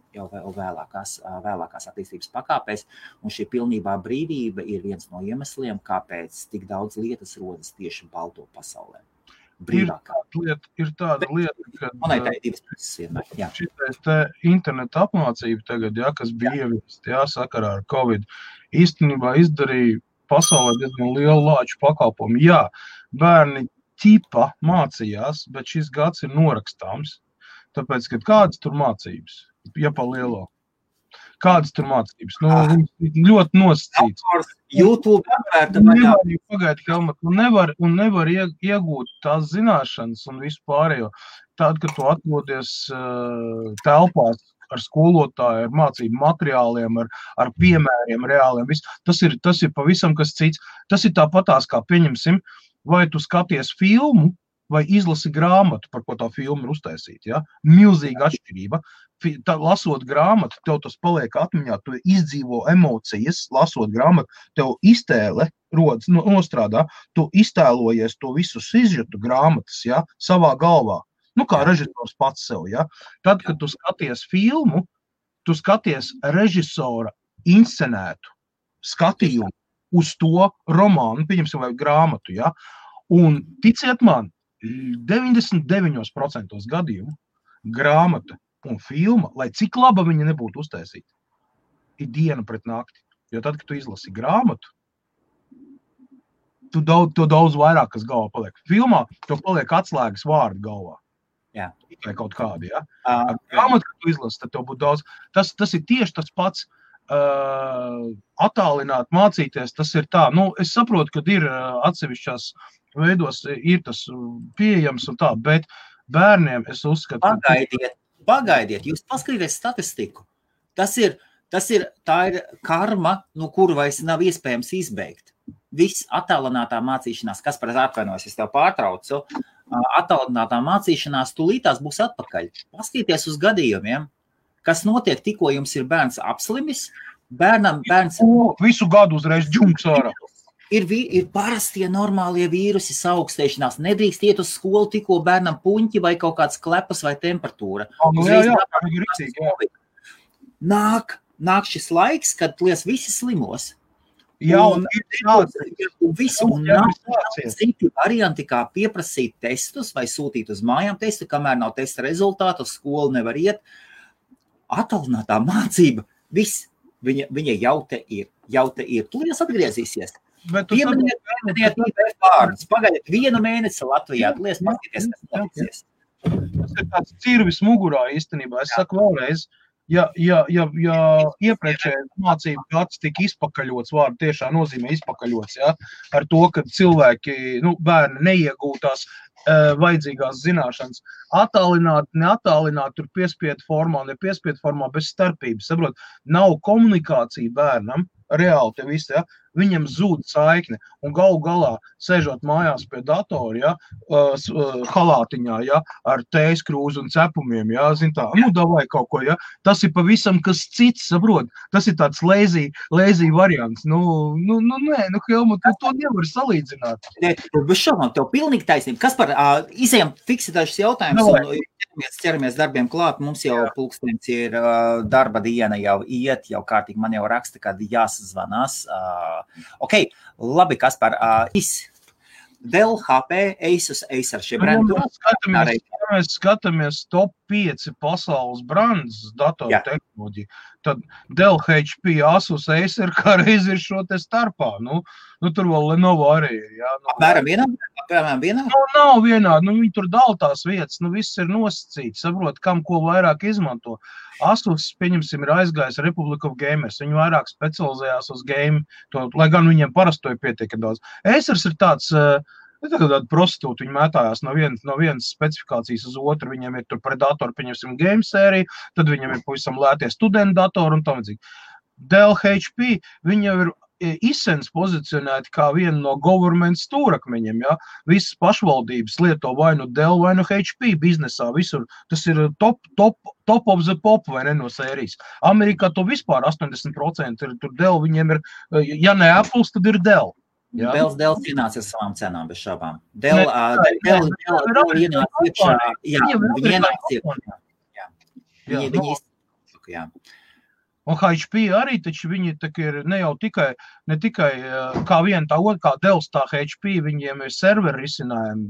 attīstības pakāpēs, un šī pilnībā brīvība ir viens no iemesliem, kāpēc tik daudz lietas rodas tieši balto pasaulē. Ir tāda lieta, ka monētai 2 puses vienmēr. Šitais interneta apmācība tagad, kas bija ieviest, sakarā ar Covid, īstenībā izdarīja pasaulē diezgan lielu lāču pakalpojumu. Jā, bērni ķipa mācījās, bet šis gads ir norakstāms. Tāpēc, ka kādas tur mācības, ja pa lielo? Kādas tur mācības? Viņi ļoti nosacīts. YouTube nevar iegūt tās zināšanas un visu pārējo. Tad, kad tu atrodies telpās ar skolotāju, ar mācību materiāliem, ar piemēriem reāliem, tas ir pavisam kas cits. Tas ir tāpatās, kā pieņemsim, vai tu skaties filmu, vai izlasi grāmatu, par ko tā filma ir uztaisīta. Ja? Milzīga atšķirība. Lasot grāmatu, tev tas paliek atmiņā, tu izdzīvo emocijas, lasot grāmatu, tev iztēle rodas, nostrādā, tu iztēlojies to visu sižetu grāmatas, ja? Savā galvā. Kā režisors pats sev. Ja? Tad, kad tu skaties filmu, tu skaties režisora inscenētu skatījumu uz to romānu, pieņemsim, vai grāmatu. Ja? Un ticiet man, 99% gadījumu grāmata un filma, lai cik laba viņa nebūtu uztaisīta, ir diena pret nakti. Jo tad, kad tu izlasi grāmatu, tu daudz vairāk, kas galvā paliek. Filmā tev paliek atslēgas vārdi galvā. Jā. Vai kaut kādi, ja? Grāmatu, kad tu izlasi, tad tev būtu daudz. Tas ir tieši tas pats attālināt, mācīties, tas ir tā. Es saprotu, ka ir atsevišķās veidos ir tas pieejams un tā, bet bērniem es uzskatu... Pagaidiet, jūs paskatieties statistiku. Tā ir karma, no kuru vairs nav iespējams izbeigt. Viss attālinātā mācīšanās, kas par atvainojas, es tev pārtraucu, attālinātā mācīšanās tūlītās būs atpakaļ. Paskatieties uz gadījumiem, kas notiek tikko jums ir bērns apslimis, Bērns visu gadu uzreiz džunks ārā. Ir parastie normālie vīrusi saaugstēšanās. Nedrīkst iet uz skolu, tikko bērnam puņķi vai kaut kāds klepas vai temperatūra. Nāk šis laiks, kad lies visi slimos. Un nav citi varianti, kā pieprasīt testus vai sūtīt uz mājām testu, kamēr nav testa rezultātu, uz skolu nevar iet. Attālinātā mācība, viss, viņa jau te ir. Tūlīt atgriezīsies. Pieminiet IBF vārdus. Pagaidiet 1 mēnesi Latvijā. Tūlīt paskaties, kas notiksies. Tas ir tāds cirvis mugurā īstenībā. Es saku vēlreiz, ja iepriekšējais mācību gads tika izpakaļots, vārdu tiešā nozīmē izpakaļots, ja, ar to, ka cilvēki, bērni neiegūtās vajadzīgās zināšanas, attālināt, neattālināt, tur piespiedu formā, nepiespiedu formā, bez starpības, saprot, nav komunikācija bērnam, reāli te viss, ja, viņam zūd saikne, un galu galā, sēžot mājās pie datora, ja, halātiņā, ja, ar tējas krūzu un cepumiem, ja, zin tā, davai kaut ko, ja, tas ir pavisam kas cits, saprot, tas ir tāds lazy variants, Helmut, to nevar salīdzināt. Bez šaubām, tev pilnīgi taisnība. Kas par, izējām fiksētāšas jautājumus un ķeramies darbiem klāt, mums jau pulkstenis ir darba diena jau iet, jau kārtīgi man jau raksta, kad jāsazvanās. Ok, labi, Kaspar, Dell, HP, Asus, Acer šie brendi. Mēs skatāmies top 5 pasaules brandus datoru tehnoloģiju, tad Dell, HP, Asus, Acer kā reiz ir šo te starpā. Tur vēl Lenovo arī ir. Ja, Apmēram vienā? Nav vienādi, viņi tur dala tās vietas, viss ir nosacīts, saprot, kam ko vairāk izmanto. Asus, pieņemsim, ir aizgājis Republic of Gamers, viņi vairāk specializējās uz game, lai gan viņiem parastoja pietiek daudz. Acers ir tāds, tāda prostitūta, viņi mētājās no vienas specifikācijas uz otru, viņiem ir tur Predator, pieņemsim, game sērija, tad viņiem ir pavisam lētie studentu datori un tam līdzīgi. Dell, HP, viņi jau ir izsens pozicionēti kā viena no government stūrakmeņiem, ja? Visas pašvaldības lieto vai nu Dell vai nu HP biznesā, visur. Tas ir top of the pop vai ne no sērijas. Amerikā to vispār 80% ir tur Dell, viņiem ir, ja ne Apple, tad ir Dell. Ja? Dell cīnās ar savām cenām, bez šaubām. Dell ienāc iekšā, viņi ienāc iekšā. Viņi izsaka, jā. Un HP arī, taču viņi ir ne tikai kā viena tā otra, kā Dells, tā HP, viņiem ir serveri risinājumi,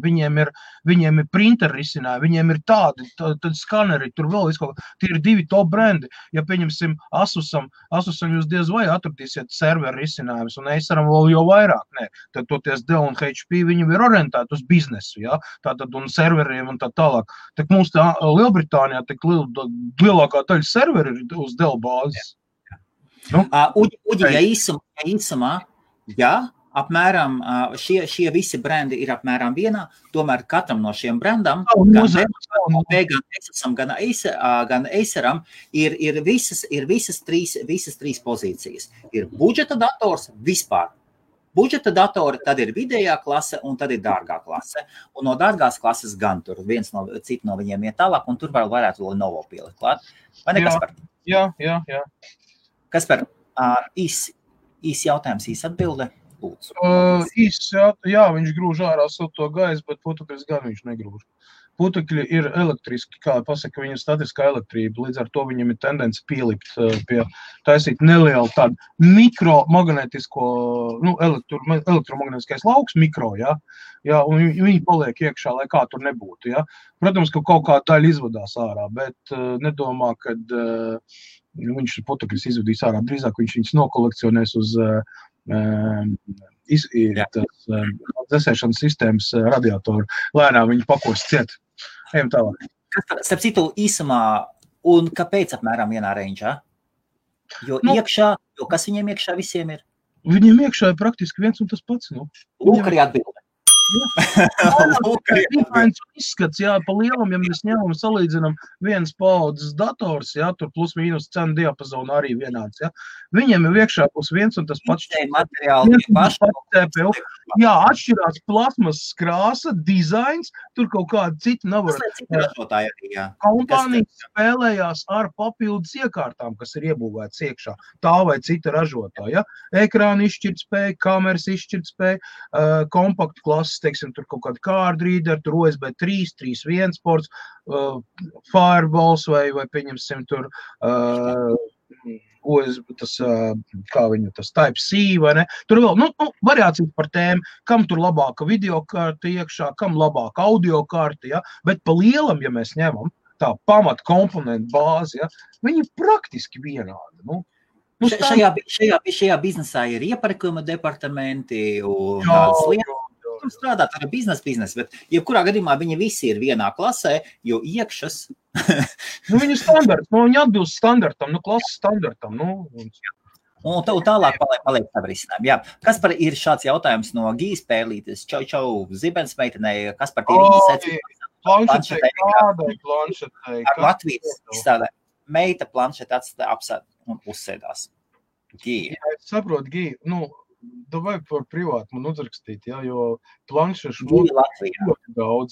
viņiem ir printer risinājumi, viņiem ir tādi, tad skaneri, tur vēl viskaut, tie ir 2 top brendi. Ja pieņemsim Asusam jūs diez vai atradīsiet serveri risinājumus, un Aceram vēl jau vairāk, ne. Tad toties Dell un HP, viņi ir orientēti uz biznesu, ja, tātad un serveriem un tā tālāk. Tak mums tā Lielbritānijā lielākā daļa serveri ir uz Dell bāzes. Uģi, ja īsumā, apmēram šie visi brendi ir apmēram vienā, tomēr katram no šiem brendam, gan Asusam, gan Aceram, ir visas trīs pozīcijas. Ir budžeta dators vispār. Budžeta datori, tad ir vidējā klase un tad ir dārgā klase. Un no dārgās klases gan tur citi no viņiem iet tālāk, un tur varētu Lenovo pielikt klāt. Vai ne, Kaspar? Jā. Kaspar, īs jautājums, īs atbilde? Viņš grūž ārā silto gaisu, bet putekļus gan viņš negrūž. Putekļi ir elektriski, kā pasaka, viņa statiskā elektrība, līdz ar to viņam ir tendence pielikt taisīt nelielu tādu mikromagnetisko, elektromagnetiskais lauks, mikro, ja, un viņi paliek iekšā, lai kā tur nebūtu, ja. Protams, ka kaut kā daļa izvadās ārā, bet nedomā, kad viņš putekļus izvadīs ārā, drīzāk viņš viņus nokolekcionēs uz dzesēšanas sistēmas radiatoru. Lēnām viņi pakos ciet. Ejam tālāk. Starp citu īsumā, un kāpēc apmēram vienā reņģā? Jo kas viņiem iekšā visiem ir? Viņiem iekšā ir praktiski viens un tas pats. Lūk arī atbilde. Izskats, jā, pa lielam, ja mēs ņemam, salīdzinam vienas paaudzes dators, jā, tur plus mīnus cenu diapazonu arī vienāds, jā. Viņiem ir iekšā plus viens un tas pats CPU. Jā, atšķirās plasmas krāsa, dizains, tur kaut kāda cita nav. Kompānijas spēlējās ar papildus iekārtām, kas ir iebūvētas iekšā, tā vai cita ražotāja. Ekrāna izšķirtspēja, kameras izšķirtspēja, kompaktu klases, teiksim, tur kaut kāda card reader, tur USB 3, 3.1 ports, Fireballs vai pieņemsim tur USB, tas, kā viņu, tas Type-C, vai ne? Tur vēl, variācijas par tēmu, kam tur labāka videokārta iekšā, kam labāka audiokārta, ja? Bet pa lielam, ja mēs ņemam tā pamata komponentu bāzi, ja? Viņi praktiski vienādi, Šajā biznesā ir iepirkuma departamenti un tādas lietas. Tur strādāt ar biznesu, bet jebkurā gadījumā viņi visi ir vienā klasē, jo iekšas. Viņi standarts, viņi atbilst standartam, klases standartam. Un tālāk paliek tā risinājumi. Jā. Kaspar, ir šāds jautājums no Gijas Pērlītes, čau, Zibens meitenei, Kaspar, tie ir planšetei. Ar Latvijas izstādē. Meita planšeti apsēd un uzsēdās. Gija. Jā, es saprotu, Gija, davai par privātu man uzrakstīt, jā, jo planšešu ļoti daudz.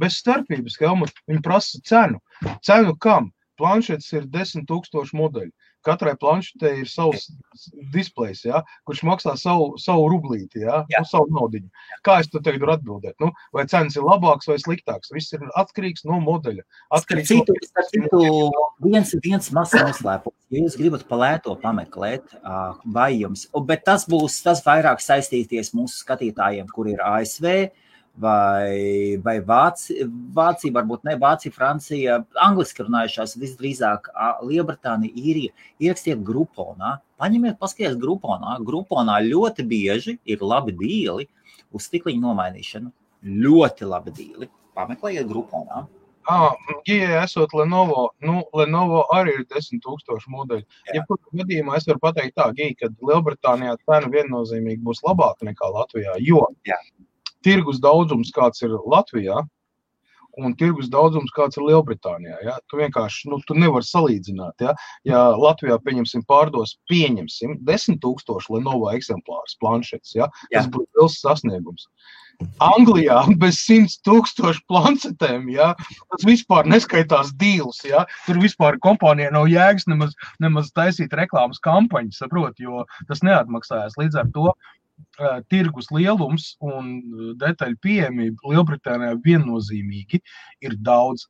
Bez starpības, Helmut, viņi prasa cenu. Cenu kam? Planšets ir 10,000 modeļi. Katrai planšetei ir savs displejs, jā, kurš maksā savu rublīti, jā, savu naudiņu. Kā es tu tagad varu atbildēt? Vai cenas ir labāks vai sliktāks? Viss ir atkarīgs no modeļa. Viens mazs noslēpums. Ja jūs gribat pa lēto pameklēt, vai jums, bet tas vairāk saistīties mūsu skatītājiem, kur ir ASV, vai Vācija, varbūt ne Vācija, Francija, angliski runājušās, visdrīzāk Lielbritānija, Īrija, ierakstiet Grouponā, paņemiet, paskaties Grouponā. Grouponā ļoti bieži ir labi dīli uz stikliņu nomainīšanu. Ļoti labi dīli. Pameklējiet Grouponā. Gijai esot Lenovo, Lenovo arī ir 10,000 modeļi. Jebkurā gadījumā es varu pateikt tā, Gija, ka Lielbritānijā cena viennozīmīgi būs labāka nekā Latvijā, jo tirgus daudzums, kāds ir Latvijā, un tirgus daudzums, kāds ir Lielbritānijā. Ja? Tu vienkārši, tu nevari salīdzināt. Ja, ja Latvijā, pārdos 10,000 Lenovo eksemplārus planšetes, ja? Tas būtu liels sasniegums. Anglijā bez 100,000 planšetēm, ja? Tas vispār neskaitās dīls. Ja? Tur vispār kompānijai nav jēgas nemaz taisīt reklāmas kampaņu, saprot, jo tas neatmaksājās. Līdz ar to tirgus lielums un detaļu pieejamība Lielbritānijā viennozīmīgi ir daudz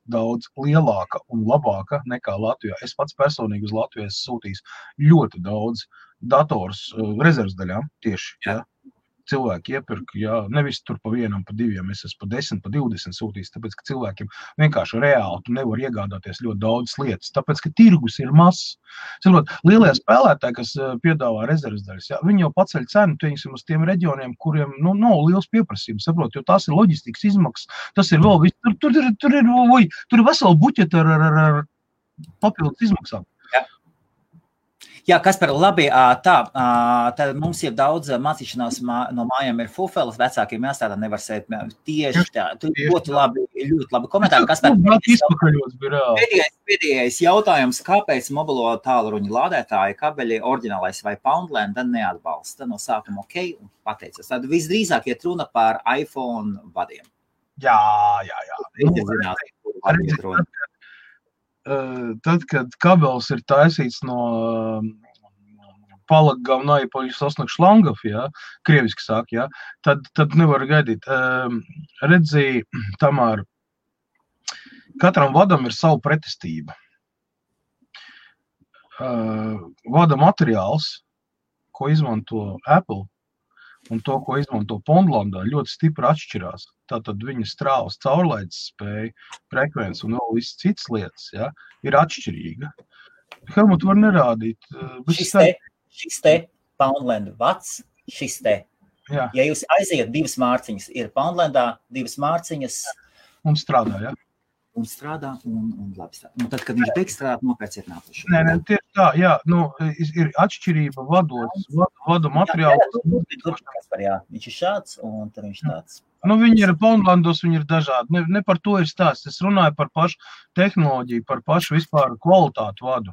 lielāka un labāka nekā Latvijā. Es pats personīgi uz Latviju esmu sūtījis ļoti daudz dators rezerves daļām tieši. Ja? Cilvēki iepirka, nevis tur pa vienam, pa diviem, es esmu pa 10, pa 20 sūtījis, tāpēc, ka cilvēkiem vienkārši reāli tu nevar iegādāties ļoti daudz lietas, tāpēc, ka tirgus ir mazs. Lielie spēlētāji, kas piedāvā rezerves daļas, viņi jau paceļ cenu, teiksim, uz tiem reģioniem, kuriem nav liels pieprasījums, saprot, jo tās ir loģistikas izmaksas, tas ir vēl viss, tur ir vesela buķeta ar papildus izmaksām. Jā, Kaspar, labi, tad mums ir daudz mācīšanās no mājām ir fufelas, vecākiem jāstādā nevar sēt tieši tā. Tu ļoti labi komentāri. Kaspar, pēdējais jautājums, kāpēc mobilo tālruņa lādētāji kabeļi oriģinālais vai Poundland neatbalsta no sākuma un pateicas. Tad visdrīzāk iet runa par iPhone vadiem. Jā. Tad, kad kabels ir taisīts no palagavnai paļasosnak šlangov, krieviski sāk, tad nevar gaidīt. Redzi, Tamār, katram vadam ir savu pretestība. Vada materiāls, ko izmanto Apple, un to, ko izmanto Poundlandā, ļoti stipri atšķirās. Tātad viņa strāvas caurlaides spēja, frekvence un vēl viss citas lietas, ir atšķirīga. Helmut var nerādīt. Šis te Poundland vats, šis te. Ja jūs aiziet 2 mārciņas, ir Poundlandā 2 mārciņas. Un strādā, un strādā, un labi strādā. Un tad, kad viņš beigs strādāt, nopērciet nākošo. Nē, tieši tā, jā, ir atšķirība vadu materiālu. Jā, viņš ir šāds, un tad viņš tāds. Viņi ir Poundlandos, viņi ir dažādi. Ne par to ir stāsts. Es runāju par pašu tehnoloģiju, par pašu vispār kvalitātu vadu.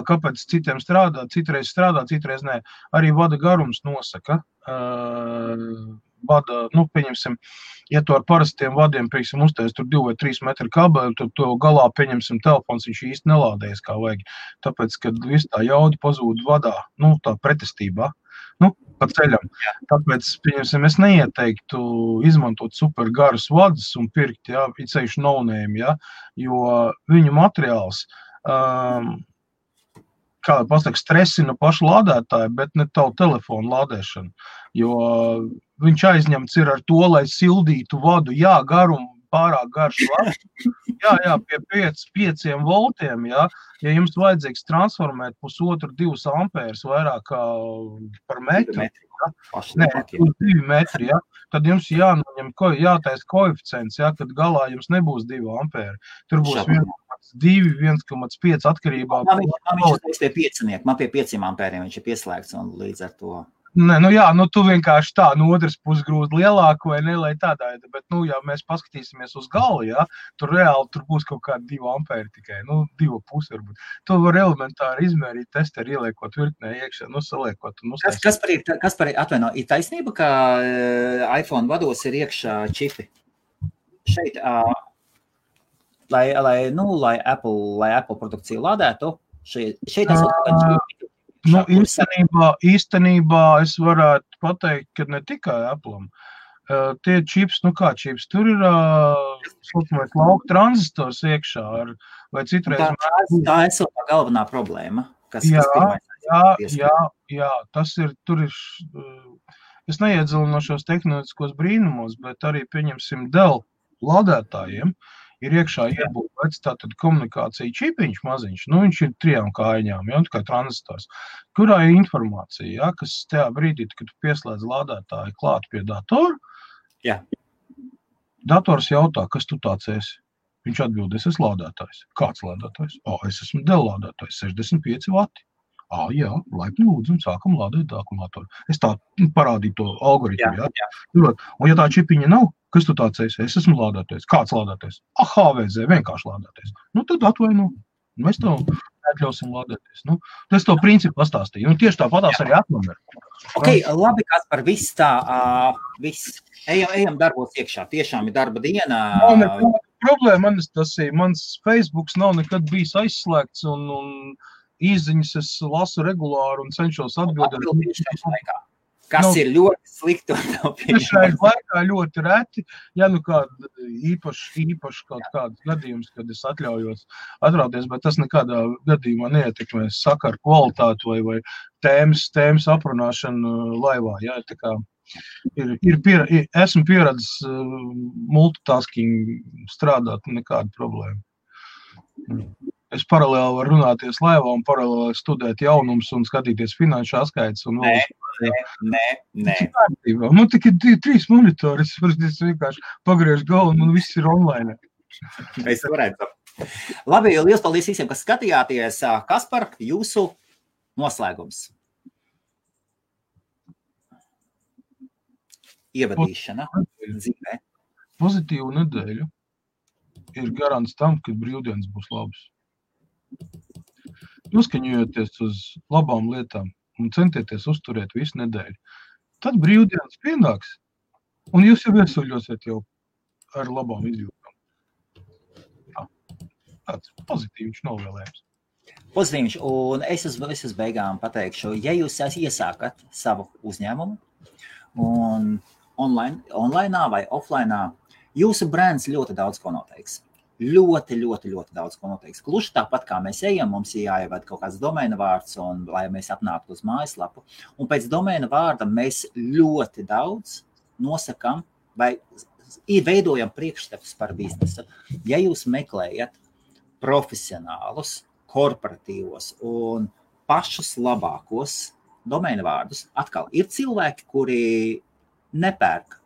Kāpēc citiem citreiz strādā, citreiz nē. Arī vada garums nosaka. Vada, pieņemsim, ja tu ar parastiem vadiem, piemēram, uztais tur 2 vai 3 metru kabeli, tad to galā, pieņemsim, telefons, viņš īsti nelādējas kā vajag. Tāpēc, kad viss tā jauda pazūd vadā, tā pretestībā, pa ceļam. Tāpēc, pieņemsim, es neieteiktu izmantot super garus vadus un pirkt, ceļš no-name, jo viņu materiāls, kā pasaka, stresina pašu lādētāju, bet ne tavu telefonu lādēšanu, jo viņš aizņemts ir ar to, lai sildītu vadu, garumu pārāk garš vads, pie 5 voltiem, ja jums vajadzīgs transformēt 1,5–2 ampērs vairāk kā par metru, 2 metri, tad jums jātaisa koeficients, kad galā jums nebūs 2 ampēri, tur būs 1,2, 1,5 atkarībā. Man pie 5 ampēriem viņš ir pieslēgts un līdz ar to. Nē, tu vienkārši tā, no otras puses grūti lielāku vai ne, lai tādā, bet, ja mēs paskatīsimies uz galu, tur reāli tur būs kaut kādi 2 ampēri tikai, 2,5 varbūt. To var elementāri izmērīt, testeri ieliekot virknē iekšā, saliekot. Kas par atvaino, ir taisnība, ka iPhone vados ir iekšā čipi? Šeit, lai Apple produkciju lādētu, šeit esot kā čipi. Īstenībā es varētu pateikt, ka ne tikai Apple'am. Tie čips, kā čips, tur ir lauka tranzistors iekšā, vai citreiz. Tā esot tā galvenā problēma, kas Jā, tas ir, tur ir, es neiedzilinošos tehnoloģiskos brīnumos, bet arī, pieņemsim, Dell lādētājiem, ir iekšā iebūvēts tātad komunikācija čipiņš maziņš, viņš ir 3 kājiņām, kā tranzistors, kurā ir informācija, kas tajā brīdī, kad tu pieslēdz lādētāju klāt pie datora, dators jautā, kas tu tāds esi? Viņš atbild, es esmu lādētājs. Kāds lādētājs? Es esmu Dell lādētājs, 65 vati. Laipni lūdzu, un sākam lādēt akumulātoru. Es tā parādīju to algoritmu, Un ja tā čipiņa nav, kas tu tāds esi? Es esmu lādētājs. Kāds lādētājs? HVZ, vienkārši lādētājs. Tad atvaino. Mēs tev atļausim lādēties. Es to principu pastāstīju. Un tieši tāpatās arī atnumer. Labi, kas par viss tā, viss. Ejam darbos iekšā. Tiešām ir darba diena. Problēma, mans Facebooks nav nekad bijis aizslēgts un īziņas es lasu regulāri un cenšos atbildēt. Kas ir ļoti slikti? Šajā laikā ļoti reti, kāda īpaši kaut kāds gadījums, kad es atļaujos atrauties, bet tas nekādā gadījumā neietekmē sakaru kvalitāti vai tēmas aprunāšanu laivā. Esmu pieredzis multitasking strādāt, nekāda problēma. Es paralēli varu runāties laivā un paralēli studēt jaunumus un skatīties finanšu atskaites. Nē. Tikai 3 monitori, es vienkārši pagriežu galvu un viss ir online. Es varētu. Labi, liels paldies visiem, kas skatījāties. Kaspar, jūsu noslēgums? Ievadīšana dzīvē. Pozitīvu nedēļu ir garants tam, ka brīvdienas būs labas. Noskaņojoties uz labām lietām un centieties uzturēt visu nedēļu. Tad brīvdienas pienāks, un jūs jau iesuļosiet jau ar labām izjūtām. Tāds pozitīvs novēlējums. Pozitīvs, un es uz beigām pateikšu, ja jūs iesākat savu uzņēmumu un online vai offline, jūsu brands ļoti daudz ko noteiks. Ļoti daudz ko noteiks. Gluži tāpat, kā mēs ejam, mums ir jāievada kaut kāds domēna vārds, un lai mēs apnāktu uz mājaslapu. Un pēc domēna vārda mēs ļoti daudz nosakam vai veidojam priekšstatus par biznesu. Ja jūs meklējat profesionālus, korporatīvos un pašus labākos domēna vārdus, atkal ir cilvēki, kuri nepērk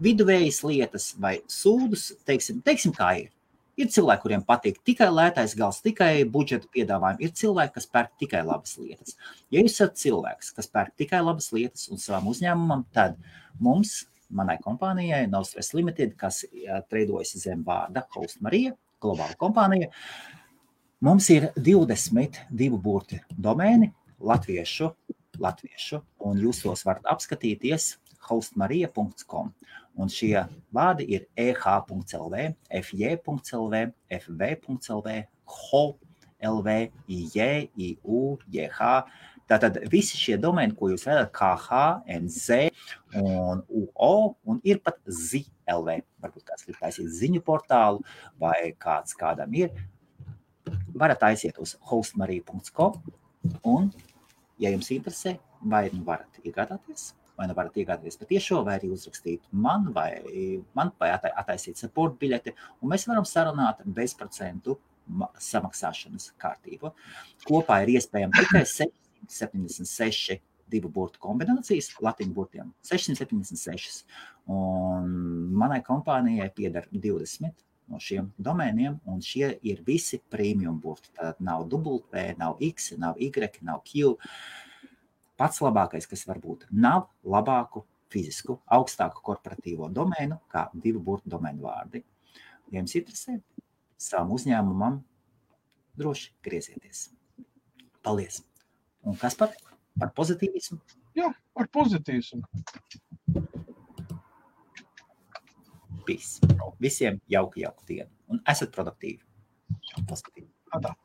viduvējas lietas vai sūdus, teiksim kā ir. Ir cilvēki, kuriem patīk tikai lētais gals, tikai budžeta piedāvājumi. Ir cilvēki, kas pērk tikai labas lietas. Ja jūs esat cilvēks, kas pērk tikai labas lietas un savam uzņēmumam, tad mums, manai kompānijai, Nostress Limited, kas treidojas zem vārda Host Marija, globāla kompānija, mums ir 22 burti domēni latviešu, un jūs tos varat apskatīties hostmarija.com. Un šie vārdi ir eh.lv, fj.lv, fv.lv, ho.lv, ij, iu, jh. Tātad visi šie domēni, ko jūs redzat, kh, nz un uo, un ir pat zi.lv. Varbūt kāds grib taisīt ziņu portālu, vai kādam ir. Varat aiziet uz hostmarija.com, un, ja jums interesē, vai nu varat iegādāties, patiešo, vai arī uzrakstīt man, vai attaisīt support biļeti, un mēs varam sarunāt bezprocentu samaksāšanas kārtību. Kopā ir iespējams tikai 676 divu burtu kombinācijas, latiņu burtiem 676, un manai kompānijai pieder 20 no šiem domēniem, un šie ir visi premium burti. Tātad nav W, nav X, nav Y, nav Q. Pats labākais, kas var būt, nav labāku fizisku, augstāku korporatīvo domēnu, kā divu burtu domēnu vārdi. Ja jums interesē, savam uzņēmumam droši griezieties. Paldies! Un kas par pozitīvismu? Jā, par pozitīvismu. Peace. Visiem jauku dienu. Un esat produktīvi. Pozitīvi. Atā.